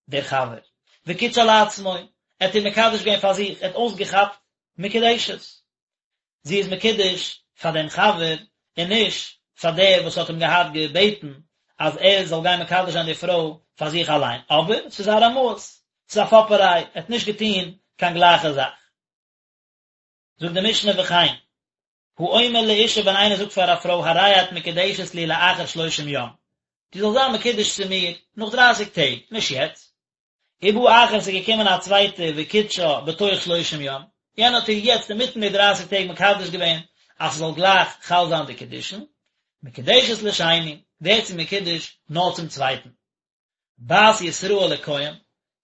דער חבר, וקידשה לעצמו, ער האט איר מקדש געווען פאר זיך, ער האט אויסגעכאפט מקודשת. זי איז מקודש פאר דעם חבר און נישט פאר דער וואס האט אים געהאט געבעטן אז ער זאל גיין מקדש זיין די פרוי פאר זיך אליין, אבער ס'איז א רמאות, ס'איז א פאפעריי, ער האט נישט געטון קיין גלייכע זאך. זאגט די משנה וכן, האומר לאישה ווען איינער זאגט פאר א פרוי הרי את מקודשת לי לאחר שלושים יום, דו זאלסט זיין מקודש צו מיר נאך דרייסיג טעג, נישט יעצט, ובא אחר ס'איז געקומען א צווייטער וקידשה בתוך שלושים יום, יענער האט איר יעצט אינמיטן די דרייסיג טעג מקדש געווען אז ס'זאל גלייך חל זיין די קידושין, מקודשת לשני, ווערט זי מקודש נאר צום צווייטן. בת ישראל לכהן,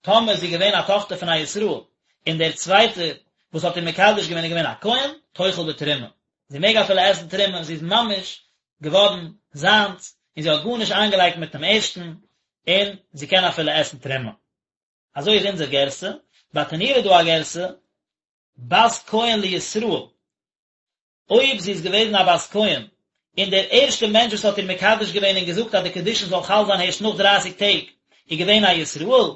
טאמער איז זי געווען א טאכטער פון א ישראל, און דער צווייטער וואס האט איר מקדש געווען איז געווען א כהן, תאכל בתרומה, זי מעג אפילו עסן תרומה, זי איז ממש געווארן זיינס, און זי האט גארנישט איינגעלייגט מיט דעם ערשטן, און זי קען אפילו עסן תרומה. אזוי איז אונזער גירסא, ברטנורא איז דא א גירסא, בת כהן לישראל, אויב זי איז געוועזן א בת כהן, און דער ערשטער מענטש וואס האט איר מקדש געווען און געזאגט אז די קידושין זאל חל זיין הערשט נאך דרייסיג טעג, איז געווען א ישראל,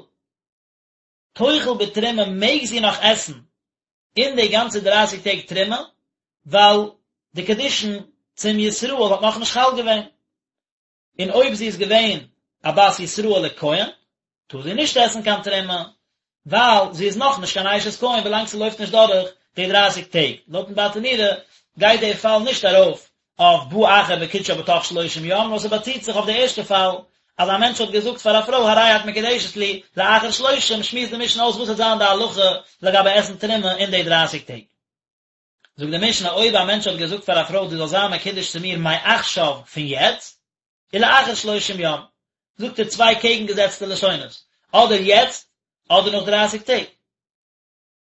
תאכל בתרומה מעג זי נאך עסן אין די גאנצע דרייסיג טעג תרומה, ווייל די קידושין צום ישראל האט נאכנישט חל געווען. און אויב זי איז געווען א בת ישראל לכהן, טאר זי נישט עסן קיין תרומה, ווייל זי איז נאך נישט קיין אשת כהן ווילאנג ס'לויפט נישט דורך די דרייסיג טעג. לויטן ברטנורא גייט די פאל נישט ארויף אויף בא אחר וקידשה בתוך שלושים יום, נאר ס'באציט זיך אויף די ערשטע פאל, אז א מענטש האט געזאגט פאר א פרוי הרי את מקודשת לי לאחר שלושים, שמועסט די משנה אויס וואס וועט זיין די הלכה לגבי עסן תרומה אין די דרייסיג טעג. זאגט די משנה אויב א מענטש האט געזאגט פאר א פרוי דו זאלסט זיין מקודש צו מיר מעכשיו פון יעצט ולאחר שלושים יום, זאגט ער צוויי קעגנגעזעצטע לשונות, אדער יעצט אדער נאך דרייסיג טעג.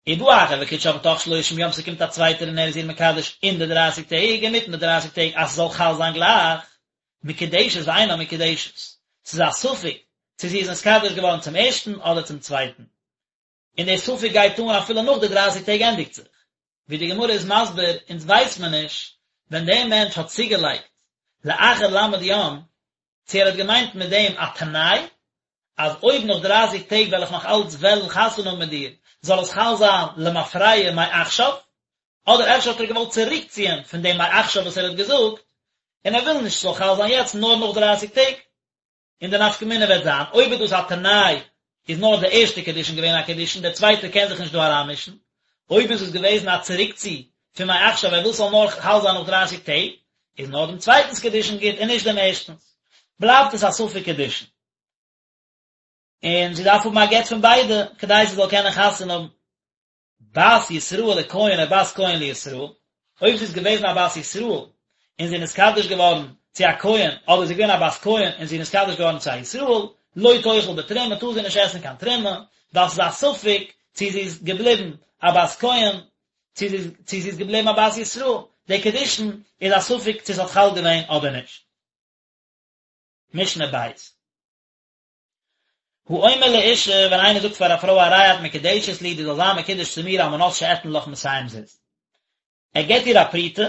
ובא אחר וקידשה בתוך שלושים יום ס'קומט א צווייטער און ער איז איר מקדש אין די דרייסיג טעג אינמיטן די דרייסיג טעג אז ס'זאל חל זיין גלייך, מקודשת ואינה מקודשת, ס'איז א ספק צו זי איז נתקדש געווארן צום ערשטן אדער צום צווייטן. און דער ספק גייט אן אפילו נאך די דרייסיג טעג ענדיגט זיך. ווי די גמרא איז מסביר, אונז ווייס מען נישט ווען דער מענטש האט צוגעלייגט לאחר ל' יום, צו ער האט געמיינט מיט דעם א תנאי, אז אויב נאך דרייסיג טעג וועל איך נאך אלץ וועלן חתונה האבן מיט דיר, זאל עס חל זיין למפרע מעכשיו, אדער אפשר האט ער געוואלט צוריקציען פון דעם מעכשיו וואס ער האט געזאגט, און ער וויל נישט ס'זאל חל זיין יעצט נאר נאך דרייסיג טעג. און די נפקא מינה וועט זיין, אויב איז דאס א תנאי, איז נאר די ערשטע קידושין געווען א קידושין, דער צווייטער קען זיך נישט דא אריינמישן. אויב איז עס געוועזן א צוריקצי פון מעכשיו, ער וויל ס'זאל נאר חל זיין נאך דרייסיג טעג, איז נאר דעם צווייטנס קידושין גוט און נישט דעם ערשטנס. בלייבט עס א ספק קידושין. און זי דארף האבן א גט פון ביידע, כדי זי זאל קענען חתונה האבן. בת ישראל לכהן או בת כהן לישראל, אויב זי איז געוועזן א בת ישראל און זי איז נתקדש געווארן צו א כהן, אדער זי איז געווען א בת כהן און זי איז נתקדש געווארן צו א ישראל, לא תאכל בתרומה, טאר זי נישט עסן קיין תרומה, ווייל ס'איז א ספק צו זי איז געבליבן א בת כהן, צו זי צו זי איז געבליבן א בת ישראל, די קידושין איז א ספק צו ס'האט חל געווען אדער נישט. משנה בית. האומר לאישה, ווען איינער זאגט פאר א פרוי הרי את מקודשת לי, דו זאלסט זיין מקודש צו מיר על מנת שאתן לך מאתים זוז. ער געבט איר א פרוטה,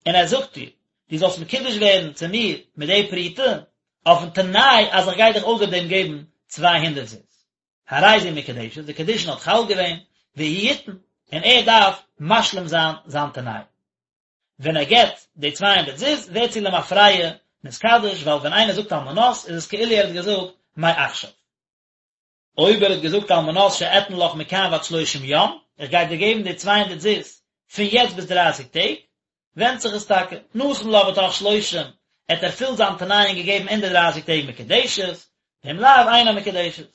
און ער זאגט איר, דו זאלסט מקודש ווערן צו מיר מיט די פרוטה, אויפן תנאי אז איך גיי דיך אויסער דעם געבן 200 זוז. הרי זו מקודשת, די קידושין האט חל געווען, והוא יתן, און ער דארף משלים זיין זיין תנאי. ווען ער געבט די 200 זוז ווערט זי למפרע נתקדש ווייל ווען איינער זאגט על מנת איז עס כאילו ער האט געזאגט מעכשיו. אויב ער האט געזאגט על מנת שאתן לך מכאן ועד שלושים יום, איך גיי דיר געבן די 200 זוז פון יעצט ביז דרייסיג טעג, ווענדט זיך עס טאקע, נתן לה בתוך שלושים, ער האט ערפילט זיין תנאי און געגעבן אין די דרייסיג טעג מקודשת, ואם לאו אינה מקודשת.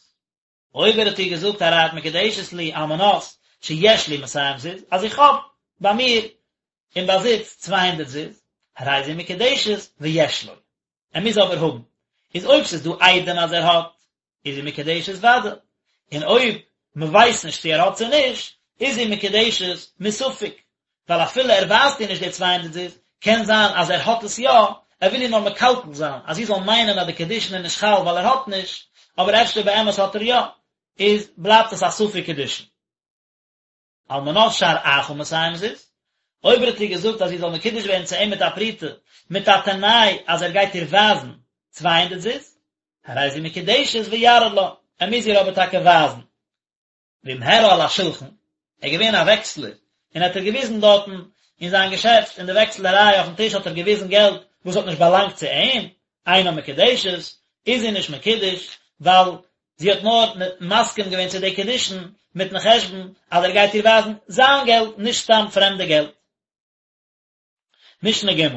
אויב ער האט איר געזאגט הרי את מקודשת לי על מנת שיש לי מאתים זוז, אז איך האב ביי מיר אין באזיץ 200 זוז, הרי זו מקודשת ויש לו. ער מוז אבער האבן. איז אויב ס'איז דא עדים אז ער האט, איז זי מקודשת ודאי, און אויב מען ווייסט נישט צו ער האט צו נישט, איז זי מקודשת מספק, ווייל אפילו ער ווייזט איר נישט די צוויי הונדערט זוז, קען זיין אז ער האט עס יא, ער וויל איר נאר מקלקל זיין, אז זי זאל מיינען אז די קידושין איז נישט חל ווייל ער האט נישט, אבער אפשר באמת האט ער יא, איז בלייבט עס א ספק קידושין. על מנת שאראך מאתים זוז, אויב ער האט איר געזאגט אז זי זאל מקודש ווערן צו אים מיט א פרוטה, מיט א תנאי אז ער גייט איר ווייזן 200 זוז, הרי זו מקודשת ויראה לה, ער מוז איר אבער טאקע ווייזן. ואם הראה על השולחן, ער איז געווען א וועקסלער, און האט איר געוויזן דארטן אין זיין געשעפט אין די וועקסלעריי אויפן טיש האט ער געוויזן געלט וואס האט נישט באלאנגט צו אים, אינה מקודשת, איז זי נישט מקודש, ווייל זי האט נאר מסכים געווען צו די קידושין מיטן חשבון אז ער גייט איר ווייזן זיין געלט נישט סתם פרעמדע געלט. משנה ג'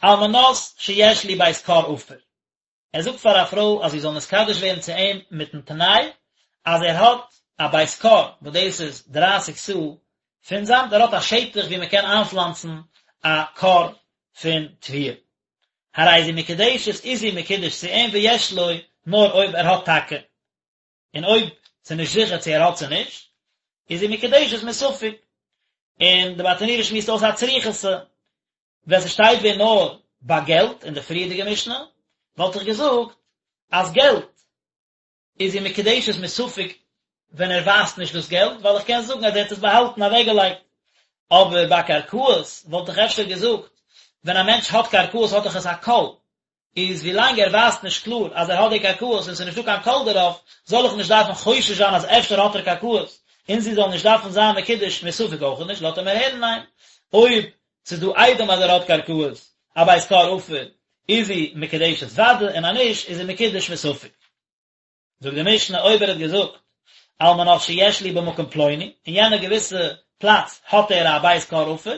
על מנת שיש לי בית כור עפר, ער זאגט פאר א פרוי אז זי זאל נתקדש ווערן צו אים מיטן תנאי אז ער האט א בית כור וואס דאס איז דרייסיג סאה פון זאמד, ער האט א שטח וואו מען קען איינפלאנצן א כור פון תבואה. הרי זו מקודשת איז זי מקודש צו אים ויש לו, נאר אויב ער האט טאקע, און אויב ס'איז נישט זיכער צו ער האט צו נישט, איז זי מקודשת מספק. און די ברטנורא שמועסט אויס א צריכותא, ווען ס'שטייט ווען נאר ביי געלט אין די פריערדיגע משנה, וואלט איך געזאגט אז געלט איז זי מקודשת מספק ווען ער ווייזט נישט דאס געלט, ווייל איך קען זאגן אז ער האט עס באהאלטן אוועקגעלייגט. אבער ביי קרקעות וואלט איך אפשר געזאגט, ווען א מענטש האט קרקעות האט דאך עס א קול, איז ווילאנג ער ווייזט נישט קלאר אז ער האט די קרקעות און ס'איז נישטא קיין קול דערויף, זאל איך נישט דארפן חושש זיין אז אפשר האט ער קרקעות, און זי זאל נישט דארפן זיין מקודש מספק אויך נישט, לאזט ער מיר הערן ניין. אויב ס'איז דא עדים אז ער האט קרקעות, א בית כור עפר, איז זי מקודשת ודאי, און אז נישט איז זי מקודש מספק. זאגט די משנה אויב ער האט געזאגט על מנת שיש לי במקום פלוני, אין יענע געוויסע פלאץ האט ער א בית כור עפר,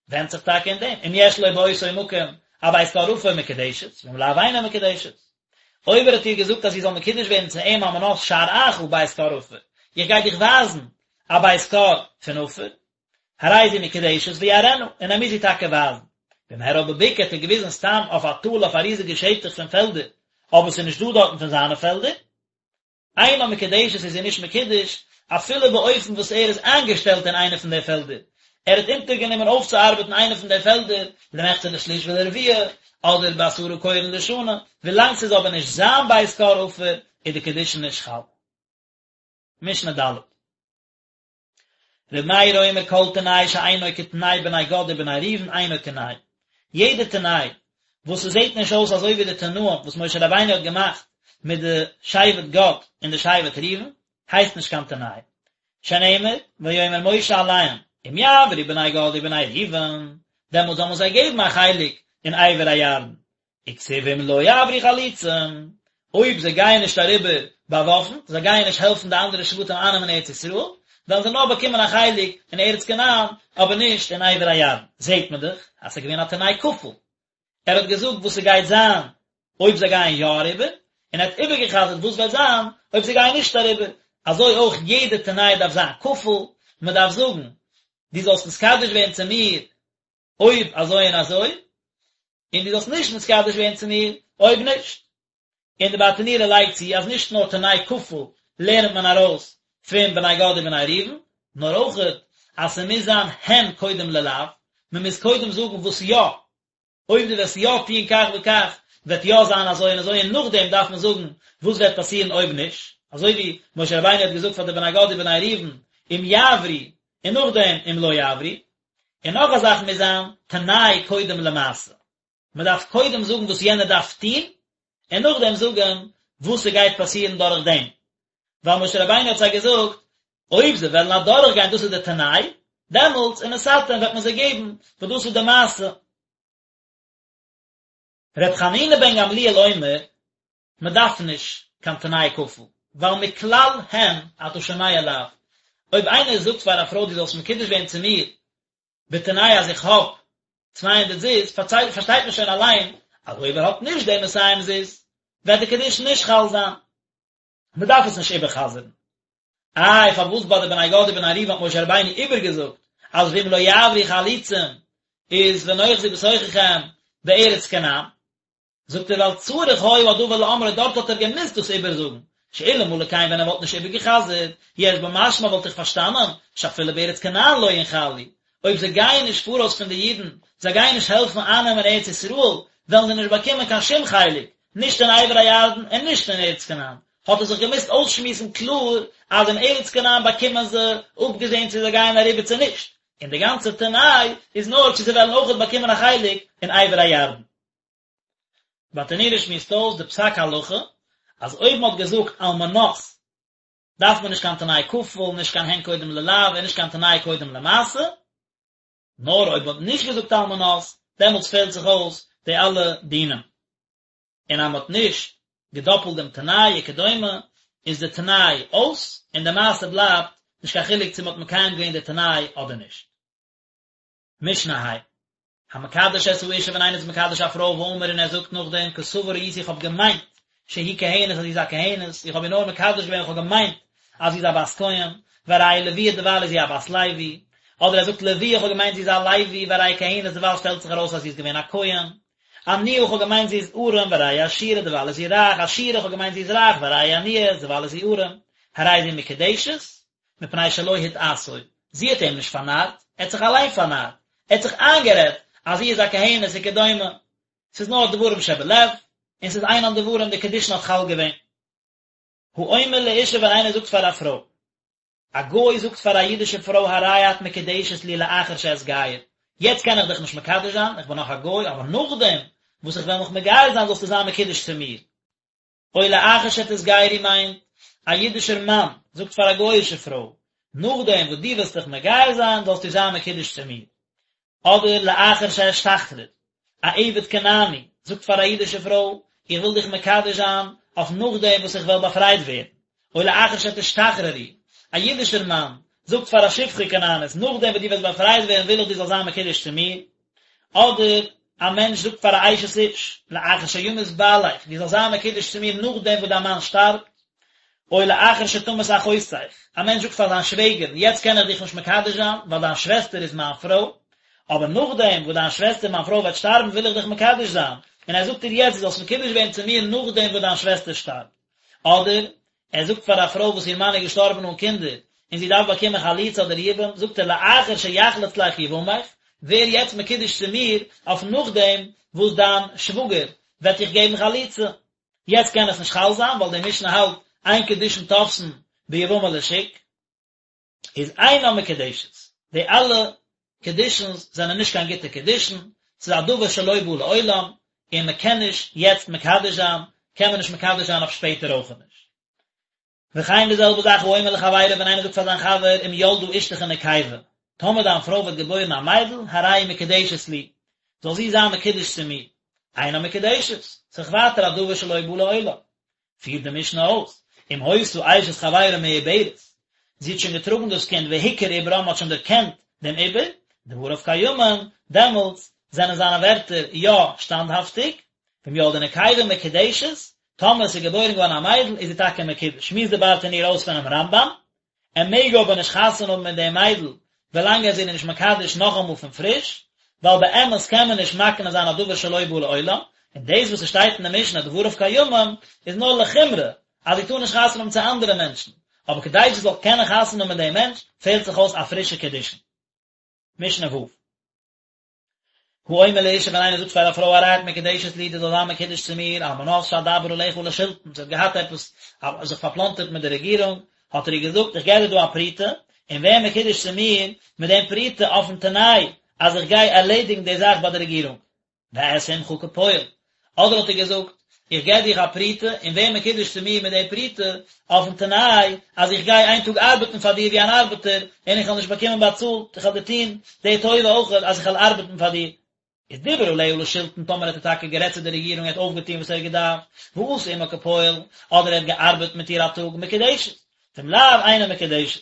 ווענדט זיך טאקע אין דעם, אם יש לו באותו מקום א בית כור עפר מקודשת, ואם לאו אינה מקודשת. אויב ער האט איר געזאגט אז זי זאל מקודש ווערן צו אים על מנת שאראך בית כור עפר, איך גיי דיך ווייזן א בית כור פון עפר, הרי זו מקודשת ויראנה, און ער מוז איר טאקע ווייזן. ואם הראה בבקעה האט ער געוויזן סתם אויף א טאל אויף א ריזיגע שטח פון פעלדער, אבער ס'איז נישט דא דארטן פון זיינע פעלדער. אינה מקודשת איז זי נישט מקודש, אפילו באופן וואס ער איז איינגעשטעלט אין איינע פון די פעלדער, ער האט אונטערגענומען אויפצוארבעטן איינע פון די פעלדער, למחצה לשליש ולרביע, אדער בעשרה כורין לשנה, ווילאנג ס'איז אבער נישט זיין בית כור עפר, איז די קידושין נישט חל. משנה ד'. ר' מאיר אומר כל תנאי שאינו כתנאי בני גד ובני ראובן אינו תנאי. יעדע תנאי וואס ס'זעט נישט אויס אזוי ווי די תנאים וואס משה רבינו האט געמאכט מיט די שבט גד און די שבט ראובן, הייסט נישט קיין תנאי. שנאמר, ויאמר משה אליהם, אם יעברו בני גד ובני ראובן, דעמאלט זאל מען זיי געבן א חלק אין עבר הירדן, וכתיב ואם לא יעברו חלוצים, אויב זיי גייען נישט אריבער באוואפנט, זיי גייען נישט העלפן די אנדערע שבטים אייננעמען ארץ ישראל, וועלן זיי נאר באקומען א חלק אין ארץ כנען, אבער נישט אין עבר הירדן. זעט מען דאך אז ס'איז געווען א תנאי כפול. ער האט געזאגט וואס ס'גייט זיין אויב זיי גייען יא אריבער, און ער האט איבערגע'חזר'ט וואס וועט זיין אויב זיי גייען נישט אריבער. אזוי אויך יעדע תנאי דארף זיין כפול, מען דארף זאגן, דו זאלסט נתקדש ווערן צו מיר אויב אזוי און אזוי, און דו זאלסט נישט נתקדש ווערן צו מיר אויב נישט. און די ברטנורא לייגט צו אז נישט נאר תנאי כפול לערנט מען ארויס פון בני גד ובני ראובן, נאר אויכעט אז ס'מוז זיין הן קודם ללאו, מ'מוז קודם זאגן וואס יא, אויב דו וועסט יא טון כך וכך וועט יא זיין אזוי און אזוי און נאכדעם דארף מען זאגן וואס וועט פאסירן אויב נישט, אזוי ווי משה רבינו האט געזאגט פאר די בני גד ובני ראובן אם יעברו און נאכדעם אם לא יעברו. און נאך א זאך מוז זיין תנאי קודם למעשה, מען דארף קודם זאגן וואס יענער דארף טון, און נאכדעם זאגן וואס ס'גייט פאסירן דורך דעם, ווייל משה רבינו האט זיי געזאגט, אויב זיי וועלן אדורך גיין דאס איז די תנאי, דעמאלטס ונתתם וועט מען זיי געבן, וואס דאס איז די מעשה. ר' חנינא בן גמליאל אומר, מען דארף נישט קיין תנאי כפול, ווייל מכלל הן אתה שומע לאו, אויב איינער זאגט פאר א פרוי דו זאלסט מקודש ווערן צו מיר בתנאי אז איך האב צוויי הונדערט זוז, פארשטייט מען שוין אליין אז אויב ער האט נישט די מאתים זוז וועט די קידושין נישט חל זיין, מען דארף עס נישט איבער'חזר'ן. איי פארוואס ביי די בני גד ובני ראובן האט משה רבינו איבערגעזאגט אז ואם לא יעברו חלוצים איז ונאחזו בתוככם בארץ כנען? זאגט ער ווייל צריך היה הדבר לאמרו דארט האט ער געמוזט דאס איבערזאגן, שאלמלא כן ווען ער וואלט נישט איבערגע'חזר'ט, יש במשמע וואלט איך פארשטאנען, שאפילו בארץ כנען לא ינחלו, אויב זיי גייען נישט פאראויס פון די אידן, זיי גייען נישט העלפן אייננעמען ארץ ישראל, וועלן זיי נישט באקומען קיין שום חלק, נישט אין עבר הירדן און נישט אין ארץ כנען, האט ער זיך געמוזט אויסשמועסן קלאר אז אין ארץ כנען באקומען זיי, אפגעזען צו זיי גייען אריבער צו נישט, און די גאנצע תנאי איז נאר צו זיי וועלן אויכעט באקומען א חלק אין עבר הירדן. ברטנורא שמועסט אויס די פסק הלכה אז אויב מען האט געזאגט על מנת דארף מען נישט קיין תנאי כפול, נישט קיין הן קודם ללאו און נישט קיין תנאי קודם למעשה, נאר אויב מען האט נישט געזאגט על מנת דעמאלטס פעלט זיך אויס די אלע דינים. און אז מען האט נישט געדאפלט דעם תנאי וכדומה איז די תנאי אויס און די מעשה בלייבט, נישט קיין חילוק צו מען האט מקיים געווען די תנאי אדער נישט. משנה ה'. המקדש את האשה ווען איינער איז מקדש א פרוי ואמר און ער זאגט נאכדעם כסבור הייתי איך האב געמיינט שהיא כהנת אז זי איז א כהנת, איך האב איר נאר מקדש געווען איך האב געמיינט אז זי איז א בת כהן, והרי היא לוויה דערווייל איז זי א בת לוי, אדער ער זאגט לוויה איך האב געמיינט זי איז א לוי והרי היא כהנת דערווייל שטעלט זיך ארויס אז זי איז געווען א כהן, עניה איך האב געמיינט זי איז ארעם והרי היא עשירה דערווייל איז זי רייך, עשירה איך האב געמיינט זי איז רייך והרי היא עניה דערווייל איז זי ארעם, הרי זו מקודשת, מפני שלא הטעתו, זי האט אים נישט פארנארט, ער האט זיך אליין פארנארט, ער האט זיך איינגערעדט אז זי איז א כהנת וכדומה, ס'איז נאר דברים שבלב, און ס'איז אינן דברים, די קידושין האט חל געווען. האומר לאשה ווען איינער זאגט פאר א פרוי, א גוי זאגט פאר א אידישע פרוי הרי את מקודשת לי לאחר שאתגייר, יעצט קען איך דיך נישט מקדש זיין, איך בין נאך א גוי, אבער נאכדעם וואס איך וועל מיך מגייר זיין זאלסטו זיין מקודש צו מיר. או לאחר שתתגיירי מיינט, א אידישער מאן זאגט פאר א גוי'אישע פרוי, נאכדעם וואס דו וועסט דיך מגייר זיין זאלסטו זיין מקודש צו מיר. אדער לאחר שאשתחרר, א עבד כנעני זאגט פאר א אידישע פרוי, איך וויל דיך מקדש זיין אויף נאכדעם וואס איך וועל באפרייט ווערן. או לאחר שתשתחררי, א אידישער מאן זאגט פאר א שפחה כנענית, נאכדעם וואס דו וועסט באפרייט ווערן וויל איך דו זאלסט זיין מקודש צו מיר. אדער א מענטש זאגט פאר א אשת איש, לאחר שימות בעלך, דו זאלסט זיין מקודש צו מיר נאכדעם וואס דיין מאן שטארבט, או לאחר שתמות אחותך, א מענטש זאגט פאר זיין שוועגערין, יעצט קען איך דיך נישט מקדש זיין, ווייל דיין שוועסטער איז מיין פרוי, אבער נאכדעם וואס דיין שוועסטער מיין פרוי וועט שטארבן וויל איך דיך מקדש זיין, און ער זאגט איר יעצט דו זאלסט מקודש ווערן צו מיר נאכדעם וואס דיין שוועסטער שטארבט. אדער, ער זאגט פאר א פרוי וואס איר מאן איז געשטארבן אן קינדער, און זי דארף באקומען חליצה אדער יבום, זאגט ער לאחר שיחלוץ לך יבמך, ווער יעצט מקודש צו מיר אויף נאכדעם וואס דיין שוואגער וועט דיך געבן חליצה. יעצט קען עס נישט חל זיין, ווייל די משנה האלט אין קידושין תופסין ביבמה לשוק. איז אינה מקודשת, די אלע קידושין'ס זענען נישט קיין גוטע קידושין, ס'איז א דבר שלא בא לעולם, און מען קען נישט יעצט מקדש זיין, קען מען נישט מקדש זיין אויף שפעטער אויך נישט. וכן די זעלבע זאך האומר לחבירו ווען איינער זאגט פאר זיין חבר אם ילדה אשתך נקבה, טאמער דיין פרוי וועט געבוירן א מיידל, הרי היא מקודשת לי, זאל זי זיין מקודש צו מיר, אינה מקודשת, ס'איז ווייטער א דבר שלא בא לעולם. פירט די משנה אויס, אם היתה אשת חברו מעוברת, זי האט שוין געטראגן דאס קינד והוכר עוברה, מען האט שוין דערקענט דעם עובר, דבריו קיימין, דעמאלטס זענען זיינע ווערטער יא שטאנדהאפטיג, ואם ילדה נקבה מקודשת, טאמער עס איז געבוירן געווארן א מיידל איז זי טאקע מקודש, שמועסט די ברטנורא אויס פונעם רמב"ם, ער מעג אבער נישט חתונה האבן מיט דעם מיידל ווילאנג ער איז איר נישט מקדש נאכאמאל פון פריש, ווייל באמת קען מען נישט מקנה זיין א דבר שלא בא לעולם, און דאס וואס עס שטייט אין די משנה דבריו קיימים איז נאר לחומרא אז זי טאר נישט חתונה האבן צו אנדערע מענטשן, אבער כדי זי זאל קענען חתונה האבן מיט דעם מענטש פעלט זיך אויס א פרישע קידושין. משנה ו'. האומר לאשה ווען איינער זאגט פאר א פרוי הרי את מקודשת לי דו זאלסט זיין מקודש צו מיר על מנת שאדבר עליך לשלטון זי האט געהאט עפעס זיך פארפלאנטערט מיט די רעגירונג האט ער איר געזאגט איך געב דיר דא א פרוטה און ווער מקודש צו מיר מיט דעם פרוטה אויפן תנאי אז איך גיי ערלעדיגן די זאך ביי די רעגירונג ואעשה עמך כפועל, אדער האט ער געזאגט, איך געב דיך א פרוטה, און ווער מקודש צו מיר מיט די פרוטה, אויפן תנאי אז איך גיי איין טאג ארבעטן פאר דיר ווי אן ארבעטער, און איך וועל נישט באקומען באצאלט, איך וועל דיר טון די טובה אויך אז איך וועל ארבעטן פאר דיר. איז דיבר עליה לשלטון, טאמער האט ער טאקע גערעדט צו די רעגירונג, ער האט אויפגעטון וואס ער האט געדארפט, ועשה עמה כפועל, אדער ער האט געארבעט מיט איר א טאג, מקודשת, ואם לאו, אינה מקודשת.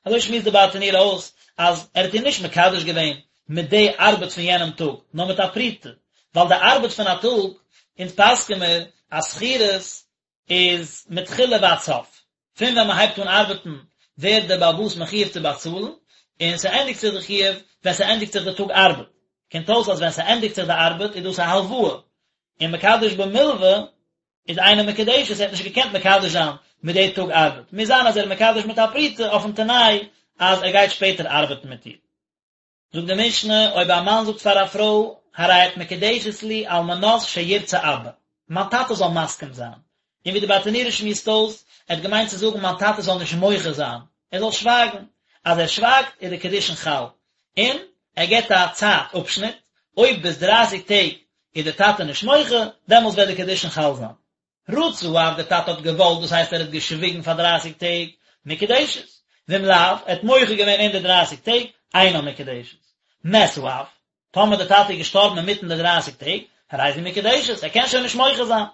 אזוי שמועסט די ברטנורא אויס אז ער האט איר נישט מקדש געווען מיט די ארבעט פון יענעם טאג, נאר מיט א פרוטה, ווייל די ארבעט פון א טאג, אונז פסק'ען מיר אז שכירות איז מתחילה ועד סוף, פון ווען מען הייבט אן ארבעטן ווערט דער בעל הבית מחויב צו באצאלן, און ס'ענדיגט זיך די חיוב ווען ס'ענדיגט זיך די טאג ארבעט. קומט אויס אז ווען ס'ענדיגט זיך די ארבעט איז דאס א הלוואה, און מקדש במלוה איז אינה מקודשת, ער האט נישט געקענט מקדש זיין מיט די טאג ארבעט, מוז זיין אז ער איז מקדש מיט א פרוטה אויפן תנאי אז ער גייט שפעטער ארבעטן מיט איר. זאגט די משנה, אויב א מאן זאגט פאר א פרוי, הרי את מקודשת לי על מנת שירצה אבא, מיין טאטע זאל מסכים זיין, און ווי די ברטנורא שמועסט אויס, ער האט געמיינט צו זאגן מיין טאטע זאל נישט מוחה זיין, ער זאל שווייגן, אז ער שווייגט איז די קידושין חל, און ער געבט א צייט אפשניט, אויב ביז דרייסיג טעג איז דער טאטע נישט מוחה, דעמאלטס וועט די קידושין חל זיין. רצה האב, דער טאטע האט געוואלט, דאס הייסט ער האט געשוויגן פאר דרייסיג טעג, מקודשת. ואם לאו, ער האט מוחה געווען אין די דרייסיג טעג, אינה מקודשת. מת האב, טאמער דער טאטע איז געשטארבן אינמיטן די דרייסיג טעג, הרי זו מקודשת, ער קען שוין נישט מוחה זיין.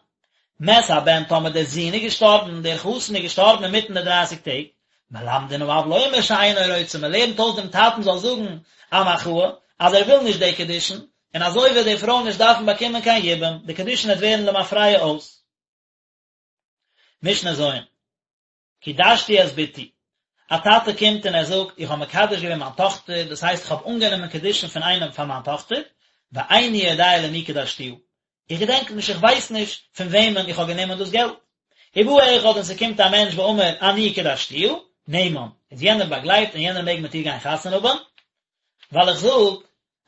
מת הבן, טאמער דער זון איז געשטארבן, דער חתן איז געשטארבן אינמיטן די דרייסיג טעג, מלמדין האב לומר שאינו רוצה, מען לערנט אויס דעם טאטן זאל זאגן א מחאה, אז ער וויל נישט די קידושין, און אזוי וועט די פרוי נישט דארפן באקומען קיין יבום, די קידושין וועט ווערן למפרע אויס. משנה ז'. קידשתי את בתי, א טאטע קומט און ער זאגט, איך האב מקדש געווען מיין טאכטער, דאס הייסט איך האב אנגענומען קידושין פון איינעם פאר מיין טאכטער, ואיני יודע למי קדשתיה, איך געדענק נישט, איך ווייס נישט פון וועמען איך האב גענומען דאס געלט. ובא אחד און ס'קומט א מענטש ואמר אני קדשתיה, נאמן, איז יענער באגלייבט און יענער מעג מיט איר גיין חתונה האבן, ווייל איך זאג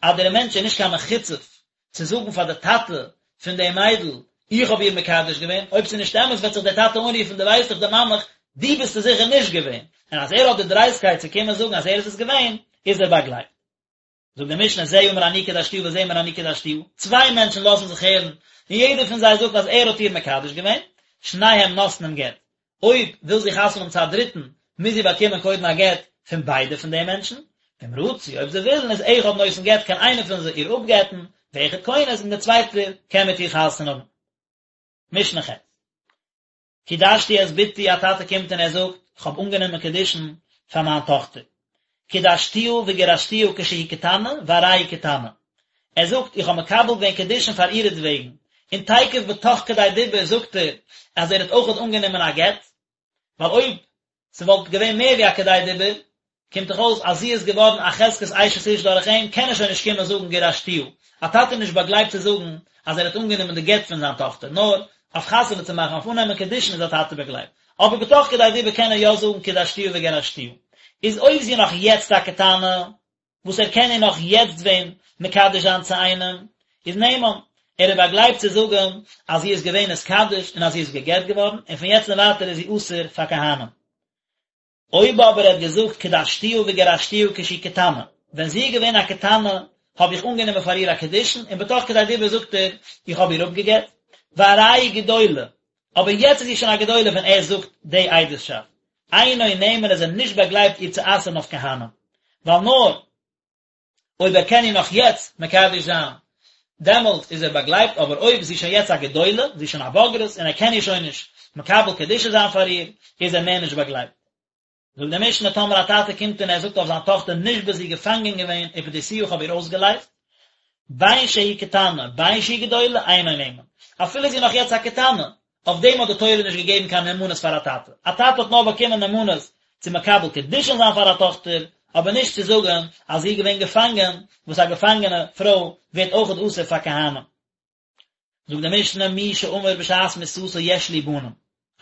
אז דער מענטש איז נישט קיין מחוצף צו זאגן פאר די טאטע פון די מיידל איך האב איר מקדש געווען, אויב ס'איז נישט אמת וועט זיך דער טאטע אנרופן דו ווייסט דאך דערמאן מיך, דו ביסט עס זיכער נישט געווען, און אז ער האט די דרייסטקייט צו קומען זאגן אז ער איז עס געווען, איז ער באגלייבט. זאגט די משנה זה אמר אני קדשתיה וזה אמר אני קדשתיה, צוויי מענטשן לאזן זיך הערן, און יעדער פון זיי זאגט אז ער האט איר מקדש געווען, שניהם נותנים גט, אויב וויל זי חתונה האבן צו א דריטן, מוז זי באקומען קודם א גט פון ביידע פון די מענטשן, ואם רצו, אויב זיי ווילן, איז אחד נותן גט קען איינער פון זיי איר אפגט'ן, ואחד כונס, און דער צווייטער קען מיט איר חתונה האבן. משנה ח'. קידשתי את בתי, א טאטע קומט און ער זאגט, איך האב אנגענומען קידושין פאר מיין טאכטער. קידשתיה וגירשתיה כשהיא קטנה, והרי היא קטנה. ער זאגט, איך האב מקבל געווען קידושין פאר אירעטוועגן, און תיכף בתוך כדי דיבור זאגט ער אז ער האט אויכעט אנגענומען א גט, ווייל אויב ס'וואלט געווען מער ווי א כדי דיבור, קומט דאך אויס אז זי איז געווארן א חזקת אשת איש דורך אים, קען ער שוין נישט קומען זאגן גירשתיה. א טאטע איז נישט באגלייבט צו זאגן אז ער האט אנגענומען די גט פון זיין טאכטער, נאר אויף חתונה צו מאכן, אויף אננעמען קידושין איז א טאטע באגלייבט. אבער בתוך כדי דיבור קען ער יא זאגן קידשתיה וגירשתיה. איז אויב זי איז נאך יעצט א קטנה, וואס ער קען איר נאך יעצט ווען מקדש זיין צו איינעם, איז נאמן, ער איז באגלייבט צו זאגן אז זי איז געווען נתקדש און אז זי איז גע'גט געווארן, און פון יעצט און ווייטער איז זי אסור פאר כהנים. אויב אבער ער האט געזאגט קדשתיה וגירשתיה כשהיא קטנה, ווען זי איז געווען א קטנה האב איך אנגענומען פאר איר א קידושין, און בתוך כדי דיבור זאגט ער איך האב איר אפגע'גט, והרי היא גדולה, אבער יעצט איז זי שוין א גדולה ווען ער זאגט די עדות'שאפט, אינו נאמן איז ער נישט באגלייבט איר צו אסר'ן אויף כהנים, ווייל נאר אויב ער קען איר נאך יעצט מקדש זיין דעמאלט איז ער באגלייבט, אבער אויב זי איז שוין יעצט א גדולה, זי איז שוין א בוגרת און ער קען איר שוין נישט מקבל קידושין זיין פאר איר, איז ער מער נישט באגלייבט. זאגט די משנה טאמער א טאטע קומט און ער זאגט אויף זיין טאכטער נשבית זי איז געפאנגען געווען ופדיתיה איך האב איר אויסגעלייזט, בין שהיא קטנה בין שהיא גדולה אינו נאמן, אפילו זי איז נאך יעצט א קטנה, אויף דעם האט די תורה נישט געגעבן קיין נאמנות פאר א טאטע, א טאטע האט נאר באקומען נאמנות צו מקבל קידושין זיין פאר א טאכטער, אבער נישט צו זאגן אז זי איז געווען געפאנגען, וואס א געפאנגענע פרוי ווערט אויכעט אסור פאר כהנים. זאגט די משנה מי שאמר בשעת מיתתו יש לי בנים,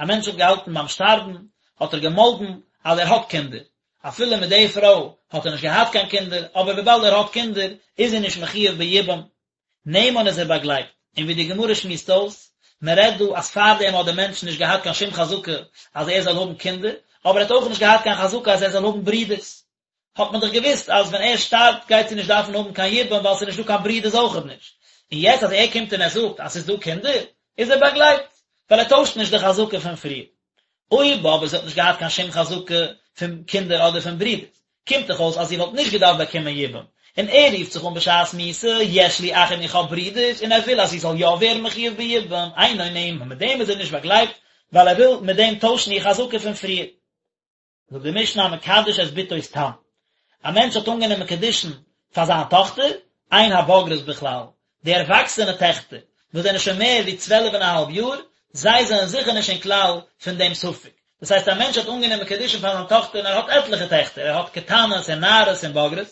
א מענטש האט געהאלטן ביים שטארבן האט ער געמאלדן אז ער האט קינדער, אפילו מיט די פרוי האט ער נישט געהאט קיין קינדער, אבער וויבאלד ער האט קינדער איז זי נישט מחויב ביבום, נאמן איז ער באגלייבט, און ווי די גמרא שמועסט אויס, מען רעדט דא אז פארדעם האט דער מענטש נישט געהאט קיין שום חזקה אז ער זאל האבן קינדער, אבער ער האט אויך נישט געהאט קיין חזקה אז ער זאל האבן ברידערס, האט מען דאך געוואוסט אז ווען ער שטארבט גייט זי נישט דארפן האבן קיין יבום ווייל ס'איז נישט דא קיין ברידערס אויכעט נישט, און יעצט אז ער קומט און ער זאגט אז ס'איז דא קינדער, איז ער באגלייבט, ווייל ער טוישט נישט די חזקה פון פריער. אויב אבער זי האט נישט געהאט קיין שום חזקה פון קינדער אדער פון ברידערס, קומט דאך אויס אז זי וואלט נישט געדארפט באקומען יבום, און ער רופט זיך אן בשעת מיתה, יש לי אחים איך האב ברידערס, און ער וויל אז זי זאל יא ווערן מחויב ביבום, אינו נאמן, מיט דעם איז ער נישט באגלייבט, ווייל ער וויל מיט דעם טוישן איר חזקה פון פריער. זאגט די משנה המקדש את בתו סתם, א מענטש האט אנגענומען קידושין פאר זיין טאכטער, אין הבוגרות בכלל, די ערוואקסענע טעכטער וואס זענען שוין מער ווי צוועלף און א האלב יאר, זיי זענען זיכער נישט אין כלל פון דעם ספק, דאס הייסט א מענטש האט אנגענומען קידושין פאר זיין טאכטער און ער האט עטליכע טעכטער, ער האט קטנות און נערות און בוגרות,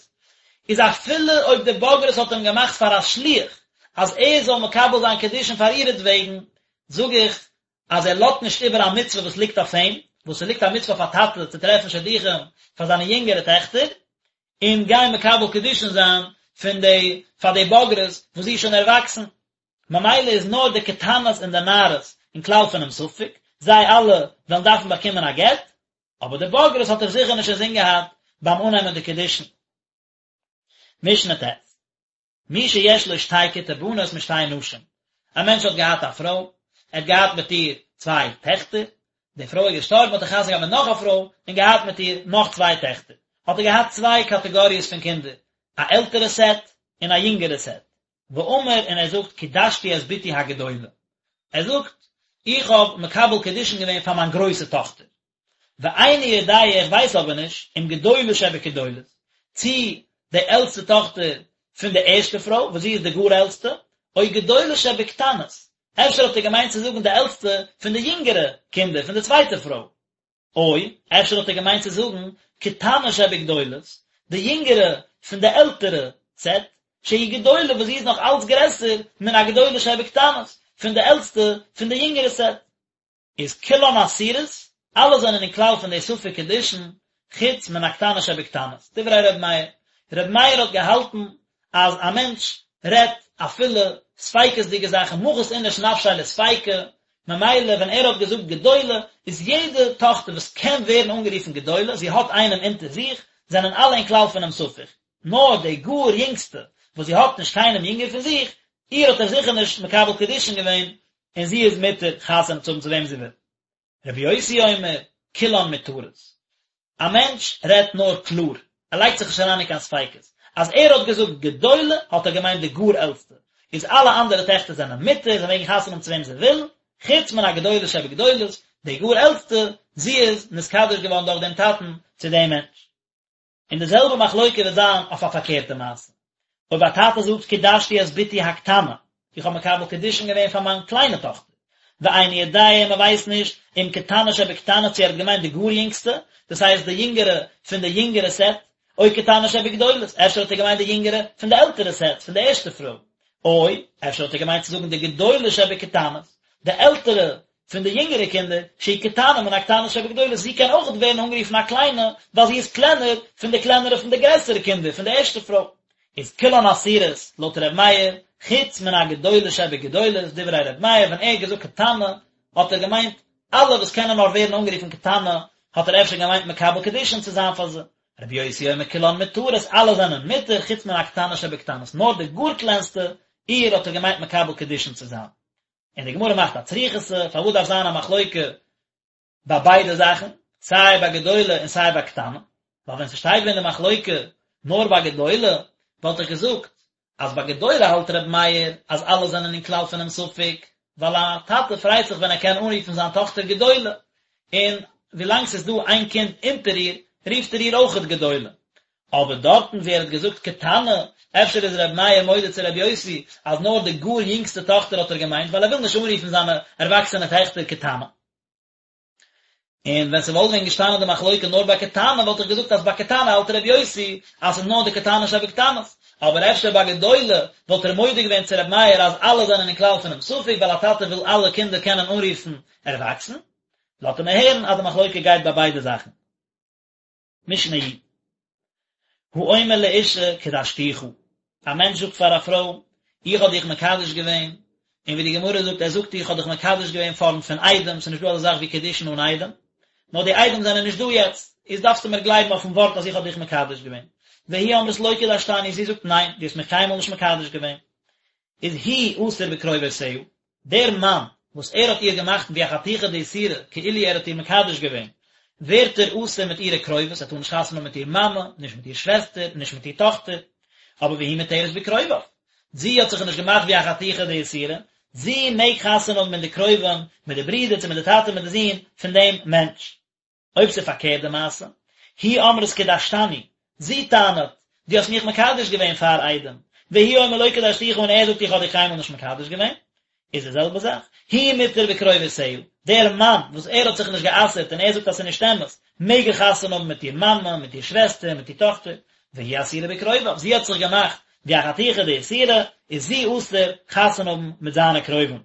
איז אפילו אויב די בוגרות האט אים געמאכט פאר א שליח. אז ער זאל מקבל זיין קידושין פאר אירעטוועגן, זאג איך אז ער לאזט נישט איבער א מצוה וואס ליגט אויף אים, וואס ס'ליגט א מצוה אויף א טאטע צו טרעפן שידוכים פאר זיינע יונגערע טעכטער, און גיין מקבל קידושין זיין פון די פאר די בוגרת וואס זי איז שוין ערוואקסן. ממילא איז נאר די קטנות און די נערות אין כלל פונעם ספק, זיי אלע וועלן דארפן באקומען א גט, אבער די בוגרת האט ער זיכער נישט אינזין געהאט ביים אננעמען די קידושין. משנה ט'. מי שיש לו שתי כתי בנות משתי נשים, א מענטש האט געהאט א פרוי, ער האט געהאט מיט איר צוויי טעכטער, די פרוי איז געשטארבן האט ער חתונה געהאט מיט נאך א פרוי און געהאט מיט איר נאך צוויי טעכטער, האט ער געהאט צוויי קאטעגאריעס פון קינדער, א עלטערע סעט און א יונגערע סעט, ואמר און ער זאגט קידשתי את בתי הגדולה, ער זאגט איך האב מקבל קידושין געווען פאר מיין גרויסע טאכטער, ואיני יודע איך ווייס אבער נישט אם גדולה שבגדולות, צי די עלטסטע טאכטער פון די ערשטע פרוי וואס זי איז די גאר עלטסטע, או גדולה שבקטנות, אפשר האט ער געמיינט צו זאגן די עלטסטע פון די יונגערע קינדער פון די צווייטע פרוי, או אפשר האט ער געמיינט צו זאגן קטנה שבגדולות, די יונגערע פון די עלטערע סעט, שהיא גדולה וואס זי איז נאך אלץ גרעסער מן הגדולה שבקטנות, פון די עלטסטע פון די יונגערע סעט. איז כולן אסורות, אלע זענען אין כלל פון די ספק קידושין, חוץ מן הקטנה שבקטנות. דברי ר' מאיר. ר' מאיר האט געהאלטן אז א מענטש רעדט אפילו ספיקות'דיגע זאכן, מחית איניש נפשיה לספיקא, ממילא ווען ער האט געזאגט גדולה, איז יעדע טאכטער וואס קען ווערן אנגערופן גדולה, זי האט איינעם אונטער זיך, זענען אלע אין כלל פונעם ספק. נאר די גאר יונגסטע, וואס זי האט נישט קיינעם יונגער פון זיך, איר האט ער זיכער נישט מקבל קידושין געווען, און זי איז מותר חתונה צו האבן צו וועם זי וויל. רבי יוסי אומר, כולן מותרות. א מענטש רעדט נאר קלאר, ער לייגט זיך נישט אריין אין קיין ספיקות. אז ער האט געזאגט גדולה האט ער געמיינט די גאר עלטסטע, איז אלע אנדערע טעכטער זענען מותר, זיי מעגן חתונה האבן צו וועם זיי ווילן, חוץ מן הגדולה שבגדולות, די גאר עלטסטע, זי איז נתקדש געווארן דורך דעם טאטן צו דעם מענטש. און די זעלבע מחלוקה וועט זיין אויף א פארקערטע מעשה. אויב א טאטע זאגט קידשתי את בתי הקטנה, איך האב מקבל קידושין געווען פאר מיין קליינע טאכטער, ואיני יודע און מען ווייסט נישט אם קטנה שבקטנות צו ער האט געמיינט די גאר יונגסטע, דאס הייסט די יונגערע פון די יונגערע סעט, או קטנה שבגדולות, אפשר האט ער געמיינט די יונגערע פון די עלטערע סעט, פון די ערשטע פרוי, או אפשר האט ער געמיינט צו זאגן די גדולה שבקטנות, די עלטערע פון די יונגערע קינדער, שהיא קטנה מן הקטנות שבגדולות, זי קען אויך ווערן אנגערופן א קליינע, ווייל זי איז קלענער פון די קלענערע פון די גרעסערע קינדער פון די ערשטע פרוי. איז כולן אסורות, לויט ר' מאיר, חוץ מן הגדולה שבגדולות, דברי ר' מאיר, ווען ער האט געזאגט קטנה, האט ער געמיינט אלע וואס קענען נאר ווערן אנגערופן קטנה, האט ער אפשר געמיינט מקבל קידושין צו זיין פאר זיי. רבי יוסי אומר כולן מותרות, אלע זענען מותר, חוץ מן הקטנה שבקטנות, נאר די גאר קלענסטע, איר האט ער געמיינט מקבל קידושין צו זיין. און די גמרא מאכט א צריכותא, פארוואס דארף זיין א מחלוקה ביי ביידע זאכן, סיי ביי גדולה און סיי ביי קטנה? ווייל ווען ס'שטייט ווען די מחלוקה נאר ביי גדולה, וואלט איך געזאגט אז ביי גדולה האלט ר' מאיר אז אלע זענען אין כלל פונעם ספק, ווייל א טאטע פרייט זיך ווען ער קען אנרופן זיין טאכטער גדולה, און ווילאנג ס'איז דא איין קינד אונטער איר, רופט ער איר אויכעט גדולה. אבער דארטן ווי ער האט געזאגט קטנה, אפשר איז ר' מאיר מודה צו ר' יוסי אז נאר די גאר יונגסטע טאכטער האט ער געמיינט ווייל ער וויל נישט אנרופן זיינע ערוואקסענע טעכטער קטנה. און ווען ס'וואלט ווען געשטאנען די מחלוקה נאר ביי קטנה וואלט איך געזאגט אז ביי קטנה האלט ר' יוסי אז ס'איז נאר די קטנה שבקטנות, אבער אפשר ביי גדולה וואלט ער מודה געווען צו ר' מאיר אז אלע זענען אין כלל פונעם ספק ווייל א טאטע וויל אלע קינדער קענען אנרופן ערוואקסן. לאזט ער מיר הערן אז די מחלוקה גייט ביי ביידע זאכן. משנה י. האומר לאשה קדשתיך, א מענטש זאגט פאר א פרוי, איך האב דיך מקדש געווען, און ווי די גמרא זאגט, ער זאגט איך האב דיך מקדש געווען פארנט פון עדים, ס'איז נישט דא אזא זאך ווי קידושין אן עדים, נאר די עדים זענען נישט דא יעצט, איז דארפסטו מיר גלייבן אויפן ווארט אז איך האב דיך מקדש געווען. והיא אומרת לא קדשתני, זי זאגט ניין, דו האסט מיך קיינמאל נישט מקדש געווען. איז הוא אסור בקרובותיה, דער מאן וואס ער האט איר געמאכט ווי א חתיכה דאיסורא, כאילו ער האט איר מקדש געווען, ווערט ער אסור מיט אירע קרובות, ער טאר נישט חתונה האבן מיט איר מאמע, נישט מיט איר שוועסטער, נישט מיט איר טאכטער. אבער והיא מותרת בקרוביו, זי האט זיך נישט געמאכט ווי א חתיכה דאיסורא, זי מעג חתונה האבן מיט די קרובים, מיט די ברידער, צו מיט די טאטע מיט די זון פון דעם מענטש. אויב ס'איז פארקערט די מעשה, היא אומרת קדשתני, זי טענה'ט, דו האסט מיך מקדש געווען פאר עדים, והוא אומר לא קדשתיך און ער זאגט איך האב דיך קיינמאל נישט מקדש געווען, איז די זעלבע זאך, הוא מותר בקרובותיה, דער מאן וואס ער האט זיך נישט גע'אסר'ט און ער זאגט אז ס'איז נישט אמת, מעג ער חתונה האבן מיט איר מאמע, מיט איר שוועסטער, מיט איר טאכטער, והיא אסורה בקרוביו, זי האט זיך געמאכט. ווי א חתיכה דאיסורא, איז זי אסור חתונה האבן מיט זיינע קרובים.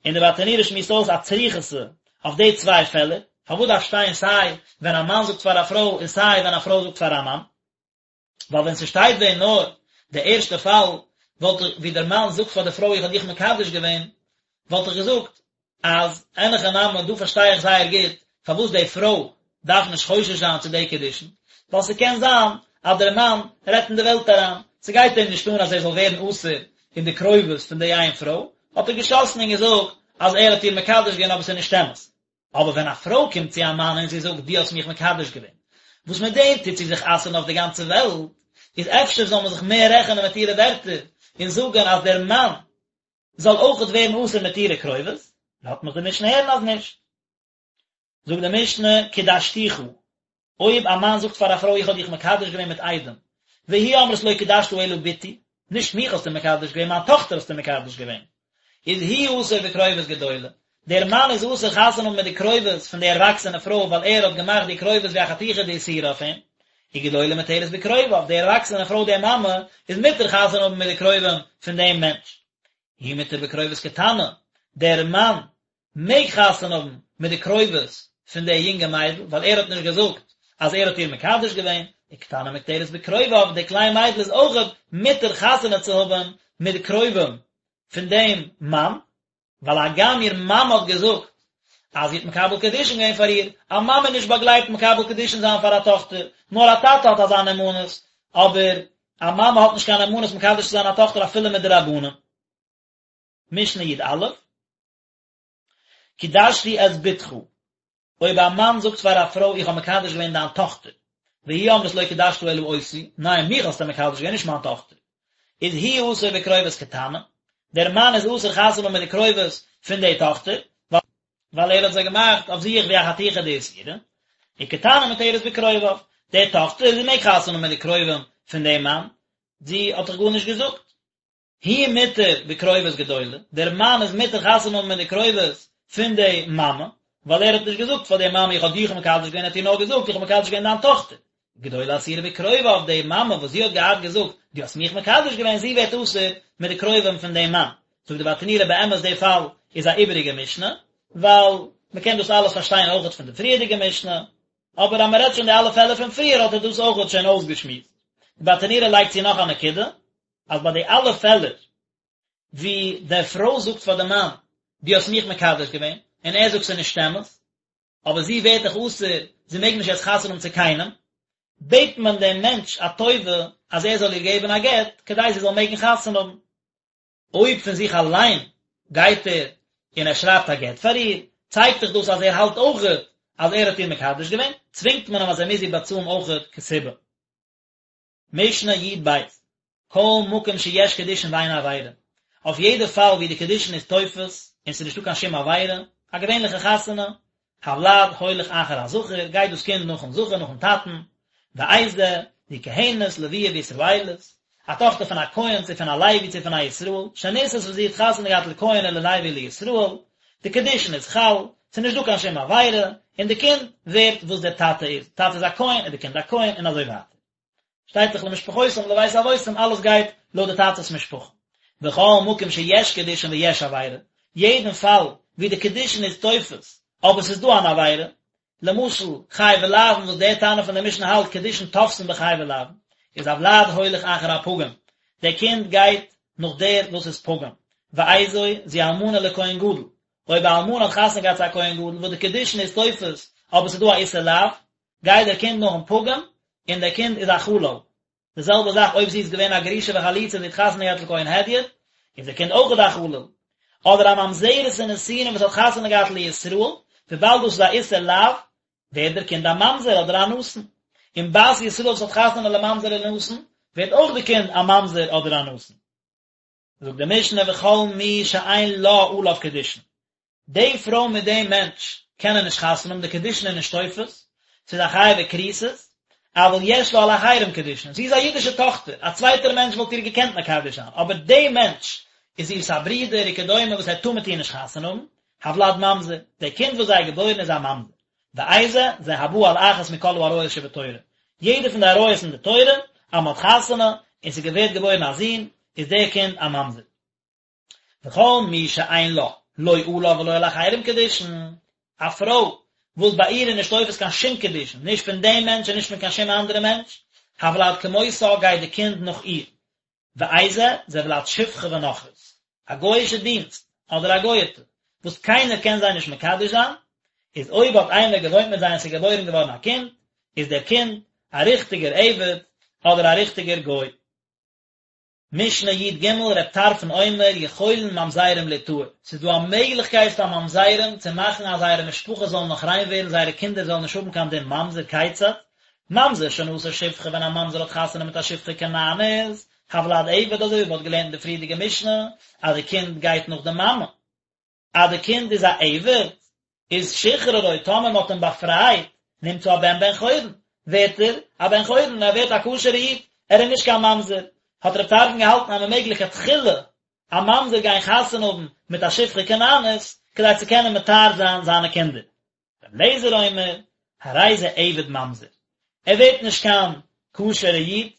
און די ברטנורא שמועסט אויס א צריכותא אויף די צוויי פעלער, פארוואס דארף שטיין סיי ווען א מאן זאגט פאר א פרוי און סיי ווען א פרוי זאגט פאר א מאן? ווייל ווען ס'שטייט ווען נאר די ערשטע פאל וואלט איך ווי דער מאן זאגט פאר די פרוי איך האב דיך מקדש געווען וואלט איך געזאגט אז אין הכי נמי דא פארשטיי איך זייער גוט פארוואס די פרוי דארף נישט חושש זיין צו די קידושין ווייל ס'קען זיין אז דער מאן רעדט אין די וועלט אריין ס'גייט אים נישט אן אז ער זאל ווערן אסור אין די קרובות פון די איין פרוי האט ער געשאסן און געזאגט אז ער האט איר מקדש געווען אבער ס'איז נישט אמת. אבער ווען א פרוי קומט צו א מאן און זי זאגט דו האסט מיך מקדש געווען, וואס מיט דעם טוט זי זיך אסר'ן אויף די גאנצע וועלט, איז אפשר זאל מען זיך מער רעכענען מיט אירע ווערטער און זאגן אז דער מאן זאל אויכעט ווערן אסור מיט אירע קרובות? לאזט מיך די משנה הערן אז נישט. זאגט די משנה, קדשתיך, אויב א מאן זאגט פאר א פרוי איך האב דיך מקדש געווען מיט עדים, והיא אומרת לא קדשת אלא בתי, נישט מיך האסטו מקדש געווען, מיין טאכטער האסטו מקדש געווען, איז הוא אסור בקרובות גדולה, דער מאן איז אסור חתונה האבן מיט די קרובות פון די ערוואקסענע פרוי ווייל ער האט געמאכט די קרובות ווי א חתיכה דאיסורא אויף אים, וגדולה מותרת בקרוביו, די ערוואקסענע פרוי די מאמע איז מותר חתונה האבן מיט די קרובים פון דעם מענטש. הוא מותר בקרובות קטנה, דער מאן מעג חתונה האבן מיט די קרובות פון די יונגע מיידל, ווייל ער האט נישט געזאגט אז ער האט איר מקדש געווען, וקטנה מותרת בקרוביו, די קליין מיידל איז אויכעט מותר חתונה צו האבן מיט די קרובים פון דעם מאן, ווייל הגם איר מאמע האט געזאגט אז זי האט מקבל קידושין געווען פאר איר, א מאמע איז נישט באגלייבט מקבל קידושין זיין פאר א טאכטער, נאר א טאטע האט אזא נאמנות, אבער א מאמע האט נישט קיין נאמנות מקדש צו זיין א טאכטער אפילו מדרבנן. משנה י"א, קידשתי את בתך, אויב א מאן זאגט פאר א פרוי איך האב מקדש געווען דיין טאכטער, והיא אומרת לא קידשת אלא אותי, ניין מיך האסטו מקדש געווען נישט מיין טאכטער, איז הוא אסור בקרובות קטנה, דער מאן איז אסור חתונה האבן מיט די קרובות פון די טאכטער, ווייל ער האט זיי געמאכט אויף זיך ווי א חתיכה דאיסורא, וקטנה מותרת בקרוביו, די טאכטער זי מעג חתונה האבן מיט די קרובים פון דעם מאן, זי האט דאך גארנישט געזאגט. הוא מותר בקרובות גדולה, דער מאן איז מותר חתונה האבן מיט די קרובות פון די מאמע, ווייל ער האט נישט געזאגט פאר די מאמע איך האב דיך מקדש געווען, ער האט איר נאר געזאגט איך האב מקדש געווען דיין טאכטער. גדולה אסורה בקרוביו, די מאמע וואס זי האט געהאט געזאגט דו האסט מיך מקדש געווען, זי ווערט אסור מיט די קרובים פון דעם מאן. זאגט די ברטנורא באמת די פאל איז א איבעריגע משנה, ווייל מען קען דאס אלעס פארשטיין אויכעט פון די פריערדיגע משנה, אבער אז מען רעדט שוין די אלע פעלער פון פריער האט ער דאס אויכעט שוין אויסגעשמועסט. די ברטנורא לייגט צו נאך א נקודה, אז ביי די אלע פעלער ווי די פרוי זאגט פאר די מאן דו האסט מיך מקדש געווען, און ער זאגט ס'איז נישט אמת, אבער זי ווערט דאך אסור, זי מעג נישט יעצט חתונה האבן צו קיינעם, בעט מען דעם מענטש א טובה אז ער זאל איר געבן א גט כדי זי זאל מעגן חתונה האבן. אויב פון זיך אליין גייט ער און ער שרייבט א גט פאר איר, צייגט דאך דאס אז ער האלט אויכעט אז ער האט איר מקדש געווען, צווינגט מען אים אז ער מוז איר באצאלן אויכעט כתובה. משנה י"ב, כל מקום שיש קידושין ואין עבירה, אויף יעדע פאל ווי די קידושין איז תופס און ס'איז נישטא קיין שום עבירה, א געווענליכע חתונה, הולד הולך אחר הזכר, גייט דאס קינד נאכן זכר, נאכן טאטן, ואיזה, זו כהנת, לויה וישראלית, א טאכטער פון א כהן צו פון א לוי צו פון א ישראל, שנישאת וואס זי האט חתונה געהאט לכהן או ללוי לישראל, די קידושין איז חל, ס'איז נישט דא קיין שום עבירה, און די קינד ווערט וואס דער טאטע איז, טאטע איז א כהן איז די קינד א כהן און אזוי ווייטער. שטייט דאך למשפחותם לבית אבותם אלעס גייט לויט די טאטע'ס משפחה. וכל מקום שיש קידושין ויש עבירה, יעדן פאל ווי די קידושין איז תופס אבער ס'איז דא אן עבירה, למשל חייבי לאוין וואס דער תנא פון די משנה האלט קידושין תופסין בחייבי לאוין, איז הולד הולך אחר הפגום, דער קינד גייט נאך דער וואס איז פגום, ואיזו זו אלמנה לכהן גדול, אויב א אלמנה האט חתונה געהאט צו א כהן גדול וואס די קידושין איז תופס אבער ס'איז דא א איסור לאו, גייט דער קינד נאכן פגום, און דער קינד איז א חלל. די זעלבע זאך אויב זי איז געווען א גרושה וחלוצה און זי האט חתונה געהאט לכהן הדיוט, איז דער קינד אויכעט א חלל. אדער א ממזרת און נתינה וואס האט חתונה געהאט לישראל, וויבאלד דאס איז א איסור לאו, ווערט דער קינד א ממזר אדער א נתין. און בת ישראל וואס האט חתונה לממזר או לנתין, ווערט אויך די קינד א ממזר אדער א נתין. זאגט די משנה וכל מי שאין לה עליו קידושין, די פרוי מיט דעם מענטש קענען נישט חתונה האבן, די קידושין איז נישט תופס, ס'איז א חייבי כריתות, אבל יש לה על אחרים קידושין, זי איז א אידישע טאכטער, א צווייטער מענטש וואלט איר געקענט מקדש זיין, אבער די מענטש איז איר'ס א ברודער וכדומה וואס ער טאר מיט איר נישט חתונה האבן, הולד ממזר, די קינד וואס זיי געבוירן איז א ממזר. ואיזה, זה הבא על אחת מכל העריות שבתורה. יעדע פון די עריות אין די תורה, אז מען האט חתונה, און ס'ווערט געבוירן א זון, איז דער קינד א ממזר. וכל מי שאין לה, לא עליו ולא על אחרים קידושין, א פרוי וואס ביי איר איז נישט תופס קיין שום קידושין, נישט פון דעם מענטש און נישט פון קיין שום אנדערע מענטש, הולד כמותה גייט די קינד נאך איר. ואיזה, זה ולד שפחה ונכרית, א גוי'אישע דינסט, אדער א גוי'טע, וואס קיינער קען זיי נישט מקדש זיין, איז אויב האט איינער געוואוינט מיט זיי און ס'איז געבוירן געווארן א קינד, איז דער קינד א ריכטיגער עבד, אדער א ריכטיגער גוי. משנה י"ג, ר' טרפון אומר, יכולין ממזרים ליטהר, ס'איז דא א מעגליכקייט פאר ממזרים צו מאכן אז זייערע משפחות זאלן נאך ריין ווערן, זייערע קינדער זאלן נישט האבן קיין דין ממזר, כיצד? ממזר שנשא שפחה ווען א ממזר האט חתונה מיט א שפחה כנענית, הולד עבד אזוי ווי מ'האט געלערנט אין די פריערדיגע משנה אז די קינד גייט נאך די מאמע, אז די קינד איז א עבד, איז שחררו טאמער מ'האט אים באפרייט, נמצא הבן בן חורין, ווערט ער א בן חורין, ער ווערט א כשר'ע איד, ער איז נישט קיין ממזר, האט רב טרפון געהאלטן אז מ'מעג לכתחילה א ממזר גיין חתונה האבן מיט א שפחה כנענית, כדי צו קענען מטהר זיין זיינע קינדער. רבי אליעזר אומר, הרי זה עבד ממזר, ער ווערט נישט קיין כשר'ע איד,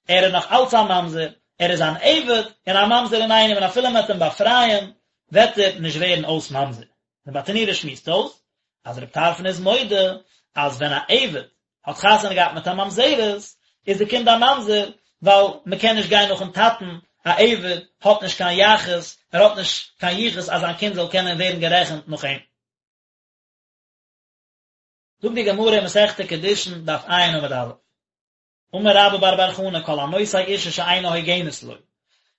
ער איז נאך אלץ א ממזר, ער איז אן עבד און א ממזר אינאיינעם און אפילו מען וועט אים באפרייען וועט ער נישט ווערן אויס ממזר. דער ברטנורא שמועסט אויס אז רבי טרפון איז מודה אז ווען א עבד האט חתונה געהאט מיט א ממזרת איז די קינד א ממזר ווייל מען קען נישט גיין נאכן טאטן, א עבד האט נישט קיין יחוס, ער האט נישט קיין יחוס אז זיין קינד זאל קענען ווערן גערעכנט נאך אים. זאגט די גמרא אין מסכת קידושין דף ע' עמוד א', אמר רבה בר בר חנה כל הנושא אישה שאינה הוגנת לו,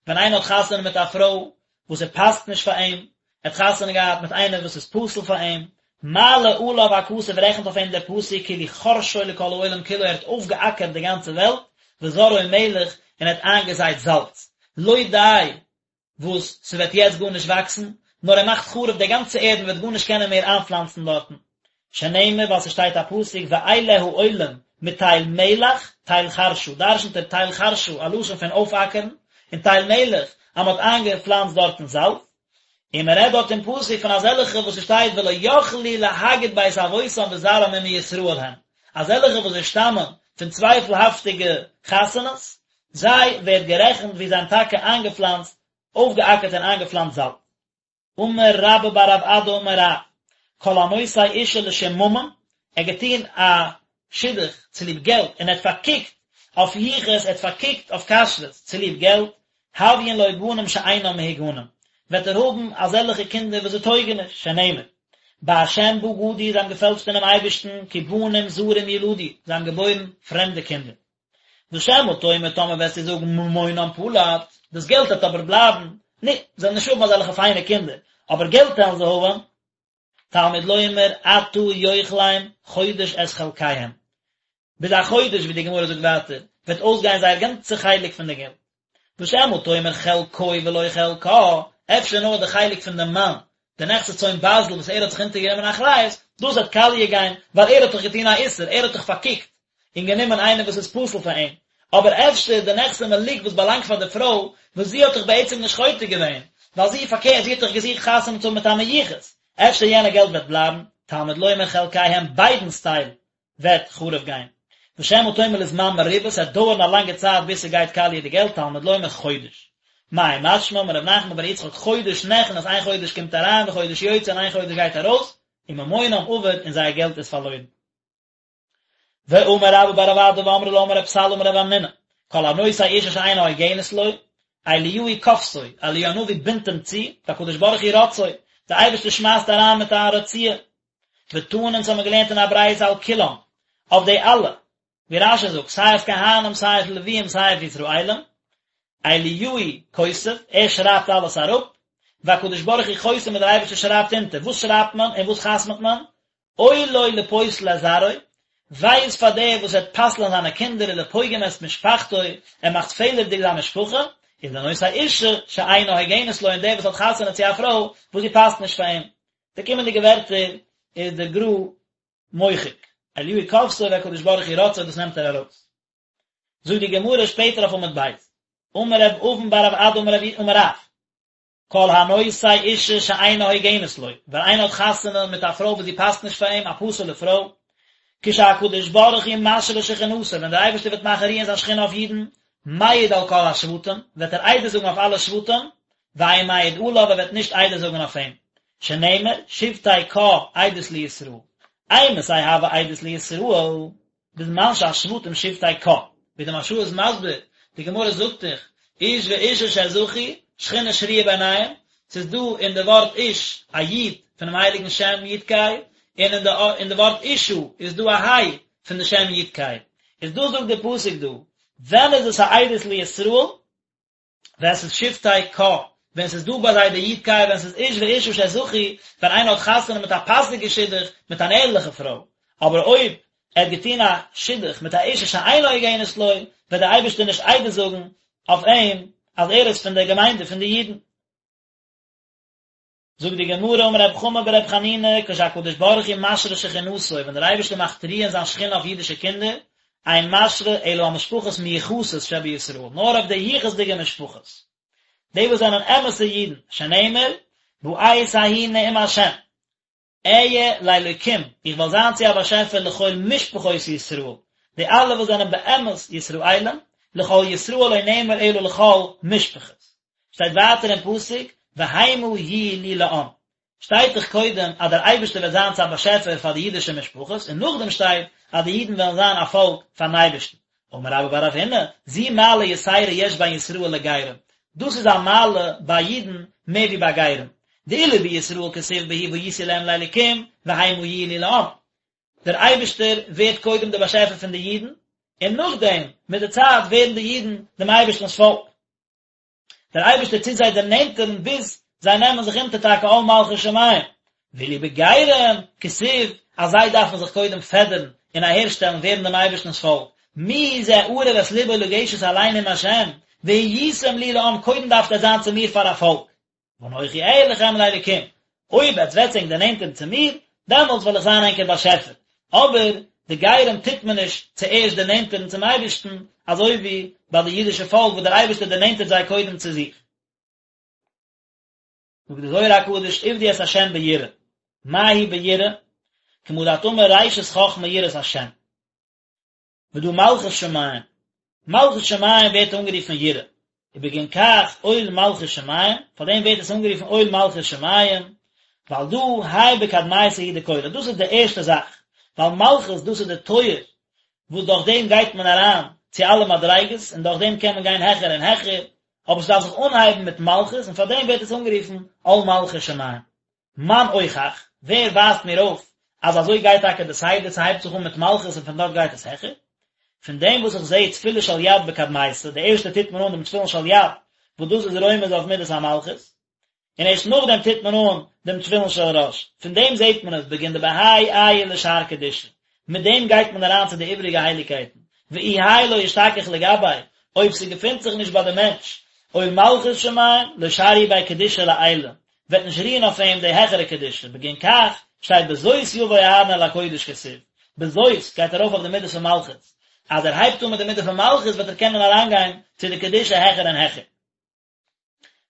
ווען איינער האט חתונה מיט א פרוי וואס ער פאסט נישט פאר אים, ער האט חתונה געהאט מיט איינער וואס איז פסול פאר אים, מעלה עליו הכתוב רעכנט אויף אים דער פסוק כאילו חרשו לכל העולם כולו ער האט אויפגעאקערט די גאנצע וועלט, וזרעו מלח און ער האט איינגעזייט זאלץ, לא די וואס ס'וועט יעצט גארנישט וואקסן, נאר ער מאכט חרוב די גאנצע ערד מ'וועט גארנישט קענען מער איינפלאנצן דארטן. שנאמר ווייל ס'שטייט א פסוק ואלה העולים מתל מלח תל חרשא, דרשנ'ט ער תל חרשא א לשון פון אויפאקערן, און תל מלח אז מ'האט איינגעפלאנצט דארטן זאלץ. און מ'רעדט דארט אין פסוק פון אזעלכע וואס ס'שטייט ולא יכלו להגיד בית אבותם וזרעם אם מישראל הם, אזעלכע וואס זיי שטאמען פון צווייפלהאפטיגע חתונות, זיי ווערט גערעכנט ווי זיי האבן טאקע איינגעפלאנצט, אויפגעאקערט און איינגעפלאנצט זאלץ. אמר רבה בר רב אדא אמר רב, כל הנושא אישה לשם ממון, ער האט געטון א שידוך צוליב געלט און ער האט פארקוקט אויף יחוס, ער האט פארקוקט אויף כשרות צוליב געלט, הויין לו בנים שאינם מהוגנים, וועט ער האבן אזעלכע קינדער וואס זיי טויגן נישט, שנאמר, בהשם בגדו, זיי האבן געפעלשט אינעם אייבערשטן, כי בנים זרים ילדו, זיי האבן געבוירן פרעמדע קינדער. ושמא תאמר טאמער וועסטו זאגן ממונם פלט, דאס געלט וועט אבער בלייבן, נו, זיי וועלן נישט האבן אזעלכע פיינע קינדער, אבער געלט וועלן זיי האבן. תלמוד לומר אתה יאכלם חודש את חלקיהם, ביז א חודש ווי די גמרא זאגט ווייטער, וועט אויסגיין זייער גאנצע חלק פון די געלט. ושמא תאמר חלקו ולא חלקה, אפשר נאר די חלק פון דעם מאן, די נכסי צאן ברזל וואס ער האט זיך אונטערגענומען אחריות, דאס וועט קאליע גיין, ווייל ער האט דאך געטון א איסור, ער האט דאך פארקוקט און גענומען איינער וואס איז פסול פאר אים, אבער אפשר די נכסי מלוג וואס באלאנגט פאר די פרוי, וואס זי האט דאך בעצם נישט חוטא געווען, ווייל זי פארקערט, זי האט דאך געזוכט חתונה צו האבן מיט א מיוחס, אפשר יענע געלט וועט בלייבן, תלמוד לומר חלקיהם ביידנס טייל וועט חרוב גיין. ושמא תאמר לזמן מרובה, ס'וועט דויערן א לאנגע צייט ביז ס'גייט קאליע די געלט, תלמוד לומר חודש. מאי משמע, אמר רב נחמן בר יצחק חודש נכנס איין חודש קומט אריין וחודש יוצא און איין חודש גייט ארויס, וממונם אבד און זייער געלט איז פארלוירן. ואמר רבה בר רב אדא ואמרי לה אמר רב סלא אמר רב המנונא, כל הנושא אישה שאינה הוגנת לו, אליהו כופתו, אליהו הנביא בינדט אים צו, והקדוש ברוך הוא רוצעו, דער אייבערשטער שמייסט אריין מיט א רציעה. ותנא אונז האבן מיר געלערנט אין א ברייתא על כולם, אויף די אלע, ווי רש"י זאגט, סיי אויף כהנים סיי אויף לוויים סיי אויף ישראלים, אליהו כותב, ער שרייבט אלעס אראפ, והקדוש ברוך הוא חותם און דער אייבערשטער שרייבט אונטער, וואס שרייבט מען און וואס חתמ'ט מען? אוי לו לפוסל את זרעו, וויי איז פאר דער וואס וועט פסל'ען זיינע קינדער ולפוגם את משפחתו, ער מאכט פעלערדיג זיין משפחה, ולנושא אישה שאינה הוגנת לו און דער וואס האט חתונה צו א פרוי וואס זי פאסט נישט פאר אים. די קומענדיגע ווערטער איז דער גר"א מוחק, אליהו כופתו והקדוש ברוך הוא רוצעו דאס נעמט ער ארויס. זאגט די גמרא שפעטער אויף עמוד ב', אמר רב אבין בר רב אדא אמר רב אמר רב, כל הנושא אישה שאינה הוגנת לו, ווען איינער האט חתונה מיט א פרוי וואס זי פאסט נישט פאר אים, א פסול'ע פרוי, כשהקדוש ברוך הוא משרה שכינתו, ווען דער אייבערשטער וועט מאכן רוען זיין שכינה אויף אידן, מעיד על כל השבטים, וועט ער עדות זאגן אויף אלע שבטים, ואין מעיד עליו, ער וועט נישט עדות זאגן אויף אים, שנאמר, שבטי קה עדות לישראל, אימתי הוה עדות לישראל, בזמן שהשבטים שבטי קה, ווי די מהרש"א איז מסביר, די גמרא זאגט דאך, איש ואישה שזכו, שכינה שרויה ביניהם, ס'איז דא אין די ווארט איש א י' פונעם הייליגן שם י' ק', און אין די אין די ווארט אישה איז דא א ה' פון די שם י' ק', איז דא זאגט די פסוק דא, ווען איז עס א עדות לישראל? ווען ס'איז שבטי קה, ווען ס'איז דא ביי זיי די י' ק', ווען ס'איז איש ואישה שזכו, ווען איינער האט חתונה מיט א פאסיגע שידוך מיט אן ערליכע פרוי, אבער אויב ער האט געטון א שידוך מיט א אישה שאינה הוגנת לו, וועט דער אייבערשטער נישט עדות זאגן אויף אים אז ער איז פון דער געמיינדע פון די אידן. זאגט די גמרא אמר רב חמא ברב חנינא כשהקדוש ברוך הוא משרה שכינתו ווען דער אייבערשטער מאכט רוען זיין שכינה אויף אידישע קינדער, אין משרה אלא על משפחות מיוחסות שבישראל, נאר אויף די יחוס'דיגע משפחות, די וואס זענען אמת'ע אידן, שנאמר, בעת ההיא נאום השם, אהיה לאלוקים, איך וועל זיין צו א באשעפער לכל משפחות ישראל, די אלע וואס זענען באמת ישראלים, לכל ישראל לא נאמר אלא לכל משפחות. שטייט ווייטער אין פסוק, והמה יהיו לי לעם. שטייט דאך קודם אז דער אייבערשטער וועט זיין צו א באשעפער פאר די אידישע משפחות, און נאכדעם שטייט אז די אידן וועלן זיין א פאלק פארן אייבערשטן. אמר רבה בר רב הונא, זו מעלה יתירה יש בין ישראל לגרים, דאס איז א מעלה ביי אידן מער ווי ביי גרים, דאילו בישראל כתיב בהו והייתי להם לאלקים והמה יהיו לי לעם, דער אייבערשטער ווערט קודם דער באשעפער פון די אידן, און נאכדעם מיט די צייט ווערן די אידן דעם אייבערשטנ'ס פאלק. דער אייבערשטער טוט זיי דערנענטערן ביז זיי נעמען זיך אונטער טאקע עול מלכות שמים, ואילו בגרים כתיב אז זיי דארפן זיך קודם פעדערן און אהערשטעלן ווערן דעם אייבערשטנ'ס פאלק, מי זה ערב את לבו לגשת אלי נאם השם, והייתם לי לעם קודם דארפט עטס זיין צו מיר פאר א פאלק. ואנכי אהיה לכם לאלקים, אויב עטס וועטס ענק דערנענטערן צו מיר, דעמאלטס וועל איך זיין ענקער באשעפער. אבער די גרים טוט מען נישט צוערשט דערנענטערן צום אייבערשטן, אזוי ווי ביי די אידישע פאלק וואס דער אייבערשטער דערנענטערט זיי קודם צו זיך. זאגט די זוהר הקדוש עבדו את ה' ביראה, מה היא ביראה? כמה דאת אמר ראשית חכמה יראת השם. ודא מלכות שמים, מלכות שמים ווערט אנגערופן יראה, ובגין כך עול מלכות שמים, פאר דעם ווערט עס אנגערופן עול מלכות שמים, ווייל דא האי בקדמיתא הוא דכלא, דאס איז די ערשטע זאך, ווייל מלכות דאס איז די טויער וואס דורך דעם גייט מען אריין צו אלע מדריגות, און דורך דעם קען מען גיין העכער און העכער, אבער ס'דארף זיך אנהייבן מיט מלכות, און פאר דעם ווערט עס אנגערופן עול מלכות שמים. מאן אוכח, ווער ווייזט מיר אויף אז אזוי גייט טאקע די סדר, ס'הייבט זיך אן מיט מלכות און פון דארט גייט עס העכער? פון דעם וואס איך זעה תפילין של יד בקדמיתא, די ערשטע טוט מען אן דעם תפילין של יד, וואס דאס איז רומז אויף מידת המלכות, און ערשט נאכדעם טוט מען אן דעם תפילין של ראש, פון דעם זעט מען עס בגין דבהאי עייל לשאר קדושה, מיט דעם גייט מען אריין צו די איבריגע הייליגקייטן, ואי האי לא אשתכח לגביה, אויב ס'געפינט זיך נישט ביי די מענטש עול מלכות שמים, לא שריא ביה קדושה לעילא, וועט נישט רוען אויף אים די העכערע קדושה, בגין כך שטייט בזאת יבוא אהרן אל הקודש כתיב, בזאת גייט ארויף אויף די מידה פון מלכות, אז ער הייבט אן מיט די מידה פון מלכות וועט ער קענען אריינגיין צו די קדושה העכער און העכער.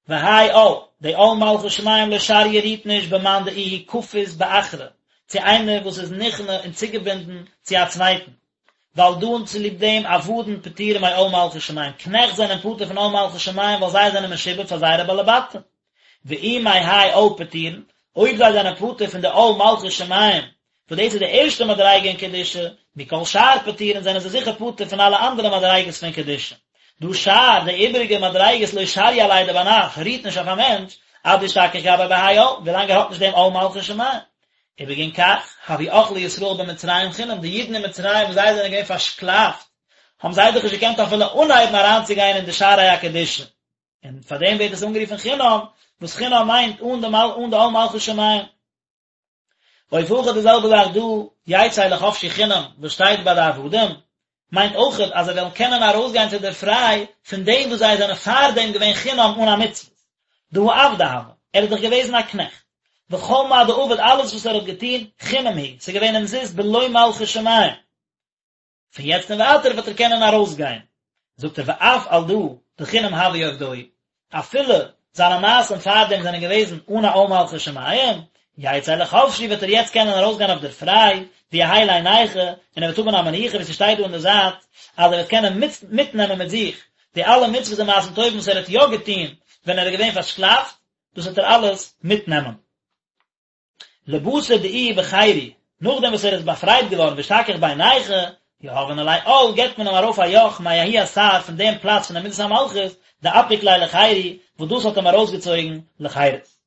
והאי עול, די עול מלכות שמים לא שריא רוהט נישט במאן דאיהו כפית באחרא, צו איינער וואס איז נכנע און צוגעבינדן צו א צווייטן, ועל דא און צוליב דעם עבדין פטורים מעול מלכות שמים, קנעכט זענען פטור פון עול מלכות שמים ווייל זיי זענען משועבד פאר זייערע בעלי בתים. ואי מהאי עול פטירין, אויב זיי זענען פטור פון די עול מלכות שמים, וואס דאס איז די ערשטע מדריגה אין קדושה, מכל שאר פטירין זענען זיי זיכער פטור פון אלע אנדערע מדריגות פון קדושה. דהא שאר, די איבעריגע מדריגות לא שריא עליה דבר נש, רוהט נישט אויף א מענטש, עד דאשתכח גביה בהאי עול, ווילאנג ער האט נישט דעם עול מלכות שמים. ובגין כך, הוו אכלי ישראל במצרים חינם, די אידן אין מצרים וואס זיי זענען געווען פארשקלאפט, האבן זיי דאך נישט געקענט אפילו אנהייבן אריינצוגיין אין די שערי הקדושה. און פאר דעם ווערט עס אנגערופן חינם, וואס חינם מיינט אן די אן די עול מלכות שמים. אוף הכא די זעלבע זאך דא, יצא לחפשי חינם, וואס שטייט ביי די עבדים, מיינט אויכעט אז זיי וועלן קענען ארויסגיין צו דער פריי פון דעם וואס זיי זענען פארדעם געווען חינם אן א מצוות. דהא עבדא הוה, ער איז דאך געוועזן א קנעכט. וכל מה דעבד אלעס וואס ער האט געטון, חינם הוא, ס'איז געווען אומזיסט בלא מלכות שמים. פון יעצט און ווייטער וועט ער קענען ארויסגיין, זאגט ער ואף על דא דחינם הוו עובדוהי, אפילו זיינע מעשים פארדעם זענען געוועזן אן א עול מלכות שמים, יצא לחפשי וועט ער יעצט קענען ארויסגיין אויף דער פריי, ויהא ליה נייחא, און ער וועט האבן א מנוחה ווי ס'שטייט דא אין די זייט אז ער וועט קענען מיטנעמען מיט זיך. די אלע מצוות און מעשים טובים וואס ער האט יא געטון ווען ער איז געווען פארשקלאפט, דאס וועט ער אלעס מיטנעמען. לבתר דאיהו בחירו, נאכדעם וואס ער איז באפרייט געווארן ואשתכח בי נייחא, יהבין עליה עול, געבט מען אים ארויף א יאך מההוא אתר פון דעם פלאץ פון די מידת המלכות, דאפיק ליה לחירו, וואס דאס האט אים ארויסגעצויגן לחירות.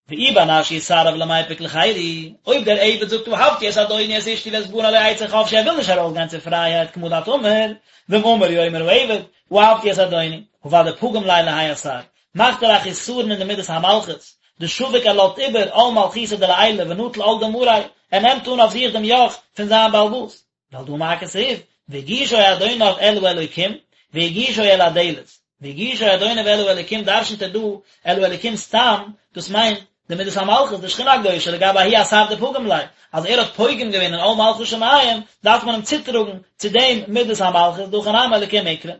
ואי בר נש יסרב למיפק לחירו, אויב דער עבד זאגט אהבתי את אדוני את אשתי ואת בני לא אצא חפשי ער וויל נישט ארויסגיין צו פרייהייט כמה דאת אמר, ואם אמר יאמר העבד, אהבתי את אדוני, הא ודאי פגים ליה להאי אתר, מאכט ער א חיסרון אין די מידת המלכות, דשביק ער לאזט איבער עול מלכותא דלעילא ונטיל עול דמריה, ער נעמט אן אויף זיך דעם יאך פון זיין בעל הבית. ועל דא מה כתיב, והגישו אדוניו אל האלוקים, והגישו אל הדלת, והגישו אדוניו אל האלוקים דרשנ'ט ער דא אל האלוקים סתם, דאס מיינט די מידת המלכות, די שכינה הקדושה, לגבי ההוא אתר דפגים ליה, אז ער האט פוגם געווען אין עול מלכות שמים, דארף מען אים צוטראגן צו דעם מידת המלכות, דהכא נמי אלוקים אקרי.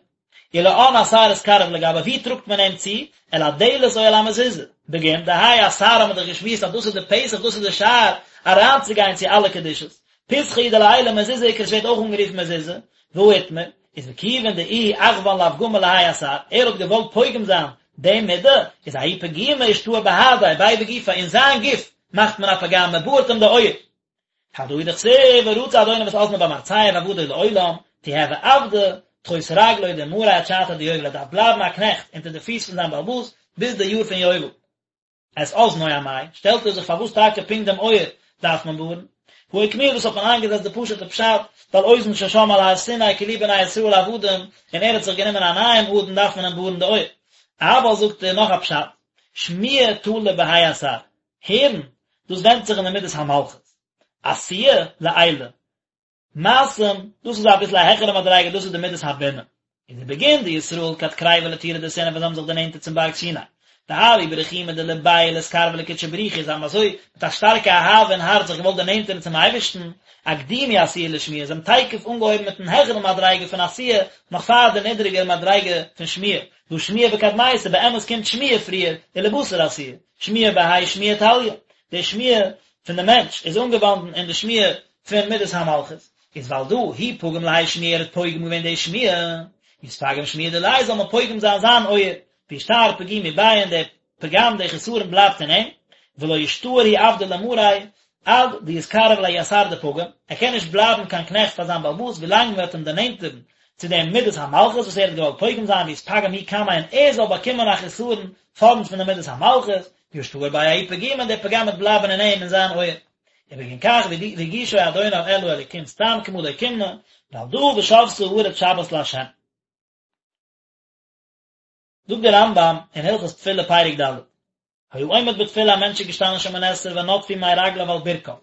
ולאן אתר אתקרב לגביה, ווי טראגט מען אים צו? אל הדלת או אל המזוזה? בגין דהאי אתר האט מען דאך געשמועסט אז דאס איז די פתח דאס איז די שער אריינצוגיין צו אלע קדושות. פתחא הוא דלעילא מזוזה אקרי עס ווערט אויך אנגערופן מזוזה, והא איתמר, איז וכיוון דאיהו אחוון לאפגמא להאי אתר, ער האט געוואלט פוגם זיין די מידה, איז ההוא פגימא אשתאר בהדיה, ביה בגופיה, אין זיין גוף מאכט מען א פגם, מען בארט אים די אויער. הדא הוא דכתיב ורצע אדוניו את אזנו במרצע ועבדו לעולם, תיהוי עבדא תחות רגלוי דמריה עד שעתא דיובל ער דארף בלייבן א קנעכט אונטער די פיס פון זיין בעל הבית ביז די יאר פון יובל. את אזנו אמאי, שטעלט ער זיך פארוואס טאקע פונקט דעם אויער דארף מען בארן? הא אוקמוה דאס האט מען איינגעזעצט די פשוטע פשט, ווייל אוזן ששמעה על הר סיני כי לי בני ישראל עבדים, און ער האט זיך גענומען א נייעם אדון דארף מען אים בארן די אויער. אבל זאגט ער נאך א פשט, שמיעה תלא בהאי אתר, הערן, דאס ווענדט זיך אין די מידת המלכות. עשיה, לעילא. מעשים, דאס איז אביסל א העכערע מדריגה, דאס איז די מידת הבינה. איז ובגין דישראל כד קריבו לטורא דסיני ווען זיי האבן זיך דערנענטערט צום בארג סיני. דהוו ברחימא דלבייהו לאתקרבא לקודשא בריך הוא, זיי האבן אזוי מיט א שטארקע אהבה אין הארץ זיך געוואלט דערנענטערן צום אייבערשטן, אקדימו עשיה לשמיעה, זיי האבן תיכף אנגעהויבן מיטן העכערן מדריגה פון עשיה, נאך פאר די נידריגער מדריגה פון שמיעה, דהא שמיעה בקדמיתא, באמת קומט שמיעה פריער, ולבתר עשיה. שמיעה בהאי שמיעה תליא, די שמיעה פון די מענטש איז אנגעוואנדן אין די שמיעה פון מידת המלכות, איז ועל דא הוא פגים להאי שמיעה ער האט פוגם געווען די שמיעה, יתפגם שמיעה דיליה זאל מען פוגם זיין זיין אויער, וישתאר פגימו ביה און די פגם די חסרון בלייבט אין אים, ולא ישתאר הוא עבדא למריה עד דיתקרב לההוא אתר דפגים, ער קען נישט בלייבן קיין קנעכט פאר זיין בעל הבית ווילאנג מען וועט אים דערנענטערן צו דעם מידת המלכות וואס ער האט געוואלט פוגם זיין ויתפגם הוא קמיה און ער זאל באקומען א חסרון פארנט פון די מידת המלכות, וישתאר ביה ההוא פגימא און דער פגם וועט בלייבן אין אים אין זיין אויער. ובגין כך והגישו אדוניו אל האלוקים סתם כמה דאוקימנא, ועל דא ושבתה הארץ שבת לה'. זאגט דער רמב"ם אין הלכות תפילה פרק ד', היה עומד בתפילה א מענטש איז געשטאנען שמונה עשרה ונטפו מי רגליו על ברכיו,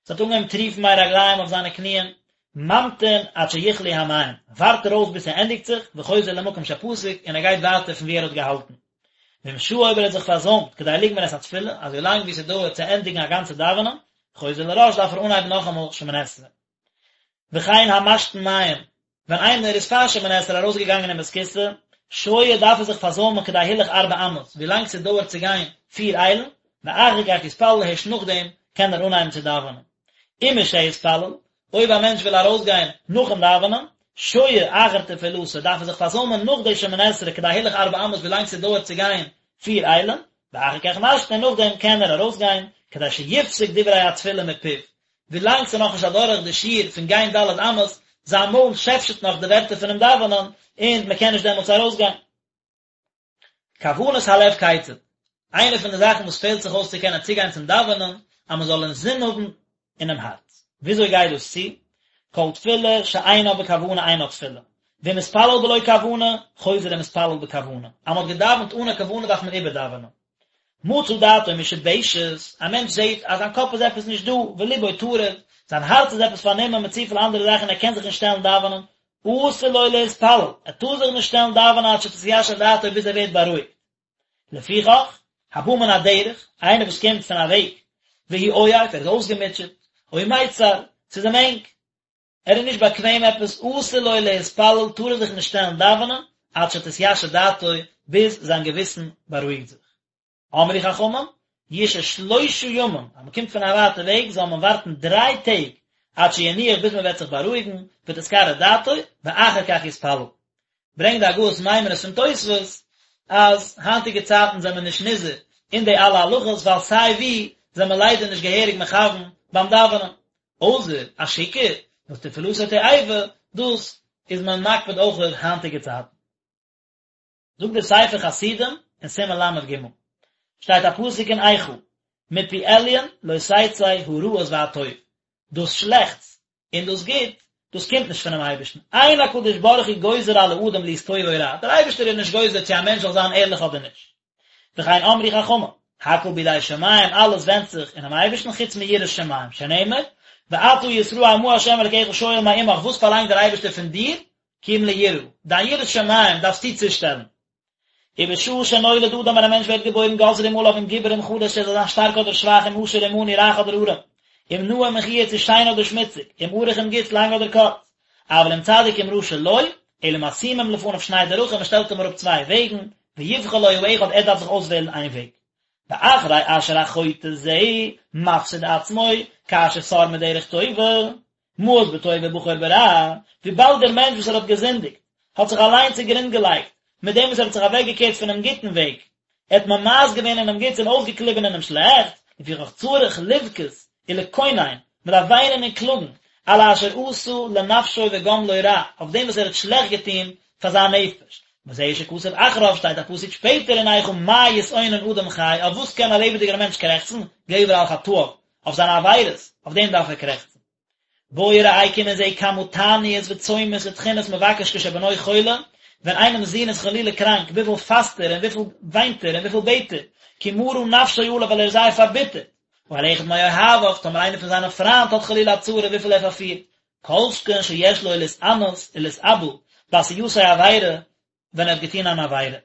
עס האט אנגעהויבן טריפן מי רגליים אויף זיינע קניען, ממתין עד שיכלו המים, ווארט ער אויס ביז ס'ענדיגט זיך, וחוזר למקום שפסק, און ער גייט ווייטער פון וואו ער האט געהאלטן. ואם שהה אויב ער האט זיך פארזוימט כדי לגמור את התפילה, אזוי לאנג ווי ס'דויערט צו ענדיגן א גאנצע דאווענען, חוזר לראש דארף ער אנהייבן נאכאמאל שמונה עשרה. וכן המשתין מים, ווען איינער איז פאר שמונה עשרה ארויסגעגאנגען אין בית הכסא, שוהה דארף ער זיך פארזוימען כדי הילוך ארבע אמות, ווי לאנג ס'דויערט צו גיין פיר איילן, ואחר כך יתפלל הערשט נאכדעם קען ער אנהייבן צו דאווענען. ומשהתפלל, אויב א מענטש וויל ארויסגיין נאכן דאווענען, שוהה אחר תפילתו, דארף ער זיך פארזוימען נאך די שמונה עשרה כדי הילוך ארבע אמות ווי לאנג ס'דויערט צו גיין פיר איילן, ואחר כך משתין און נאכדעם קען ער ארויסגיין, כדי שיפסיק דברי התפילה מפיו, ווילאנג ס'איז נאכנישט אדורך די שיעור פון גיין ד' אמות, זיין מויל שעפשעט נאך די ווערטער פונעם דאווענען, און מ'קען נישט דעמאלטס ארויסגיין. כוונת הלב כיצד? איינע פון די זאכן וואס פעלט זיך אויס צו קענען צוגיין צום דאווענען, אז מ'זאל אינזין האבן אינעם הארץ. וויאזוי גייט דאס צו? כל תפילה שאינה בכוונה אינה תפילה. ואם התפלל בלא כוונה, חוזר ומתפלל בכוונה. אז מ'האט געדאווענט אן א כוונה דארף מען איבערדאווענען. מצא דעתו משובשת, א מענטש זעט אז זיין קאפ איז עפעס נישט דא, ולבו טרוד, זיין הארץ איז עפעס פארנומען מיט צופיל אנדערע זאכן ער קען זיך נישט שטעלן דאווענען, אסור לו להתפלל, ער טאר זיך נישט שטעלן דאווענען עד שתתיישב דעתו ביז ער ווערט בארואיגט. לפיכך, הבא מן הדרך, איינער וואס קומט פון א וועג, והוא עייף, ער איז אויסגעמוטשעט, או מיצר, ס'איז אים ענג, ער איז נישט באקוועם עפעס, אסור לו להתפלל, טאר ער זיך נישט שטעלן דאווענען, עד שתתיישב דעתו, ביז זיין געוויסן בארואיגט זיך. אמרו חכמים, ישהה שלושה ימים, אז מען קומט פון א ווייטע וועג זאל מען ווארטן דריי טעג, עד שינוח ביז מען וועט זיך בארואיגן, ותתקרר דעתו, ואחר כך יתפלל. ברענגט די הגהות מיימוניות פון תוספות אז היינטיגע צייטן זענען מיר נישט נזהר אין די אלע הלכות ווייל סיי ווי זענען מיר ליידער נישט געהעריג מכוון ביים דאווענען, אויסער א שיכור וואס תפילתו תועבה, דאס איז מען מקפיד אויך היינטיגע צייטן. זאגט דער ספר חסידים אין סימן ל"ג, שטייט א פסוק אין איכה, מפי עליון לא תצא הרעות והטוב, דאס שלעכטס און דאס גוט, דאס קומט נישט פונעם אייבערשטן, אין הקדוש ברוך הוא גוזר על האדם להיות טוב או רע, דער אייבערשטער איז נישט גוזר צו א מענטש זאל זיין ערליך אדער נישט. וכן אמרו חכמים, הכל בידי שמים, אלעס ווענדט זיך אינעם אייבערשטן חוץ מיראת שמים, שנאמר, ועתה ישראל מה ה' אלקיך שואל מעמך, וואס פארלאנגט דער אייבערשטער פון דיר, כי אם ליראה, דיין יראת שמים דארפסטו צושטעלן. ובשעה שנולד אדם ווען א מענטש ווערט געבוירן גוזרים עליו אם גיבור אם חלש ער זאל זיין שטארק אדער שוואך אם עשיר אם עני רייך אדער ארעם, אם נאה אם מכוער צו שיין אדער שמוציג, אם ארוך אם גוט לאנג אדער קורץ, אבל אם צדיק אם רשע לא, אלא משימים לפניו שני דרכים מען שטעלט אים אראפ צוויי וועגן, ויבחר לו האחד ער דארף זיך אויסוועלן איין וועג. ואחרי אשר החוטא זה מפסיד עצמו כאשר סר מדרך טובה, מאס בטוב ובחר ברע, וויבאלד דער מענטש וואס ער האט געזינדיגט, האט זיך אליין צוגרונד געלייגט, מיט דעם וואס ער האט זיך אוועקגעקערט פונעם גוטן וועג, ער האט ממאס געווען אינעם גוטס און אויסגעקליבן אינעם שלעכטס, לפיכך צריך לבכות ולקונן, מען דארף וויינען און קלאגן, על אשר עשה לנפשו וגמלו רע, אויף דעם וואס ער האט שלעכט געטון פאר זיין נפש. וזהו שכתוב אחריו, שטייט א פסוק שפעטער אין איכה מה יתאונן אדם חי, אויף וואס קען א לעבעדיגער מענטש קרעכצן, גבר על חטאיו, אויף זיינע עבירות, אויף דעם דארף ער קרעכצן. בוא וראה קום און זע כמה תעניות וצומות ותחינות מבקש כשבנו חולה, ווען איינעמס זון איז חלילה קראנק, וויפיל פאסט ער און וויפיל וויינט ער און וויפיל בעט ער, כי מרה נפשו עליו ווייל ער איז זייער פארביטערט, או על אחד מאוהביו, טאמער איינער פון זיינע פריינט האט חלילה א צרה וויפיל ער פארפירט, כל שכן שיש לו להתענות ולהתאבל בעשייתו עבירה, ווען ער האט געטון אן עבירה.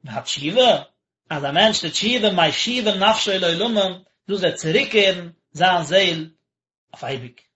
והתשובה, אז א מענטש טוט תשובה משיבה נפשו לעולמים, דאס וועט צוריקקערן זיין זעהל אויף אייביג.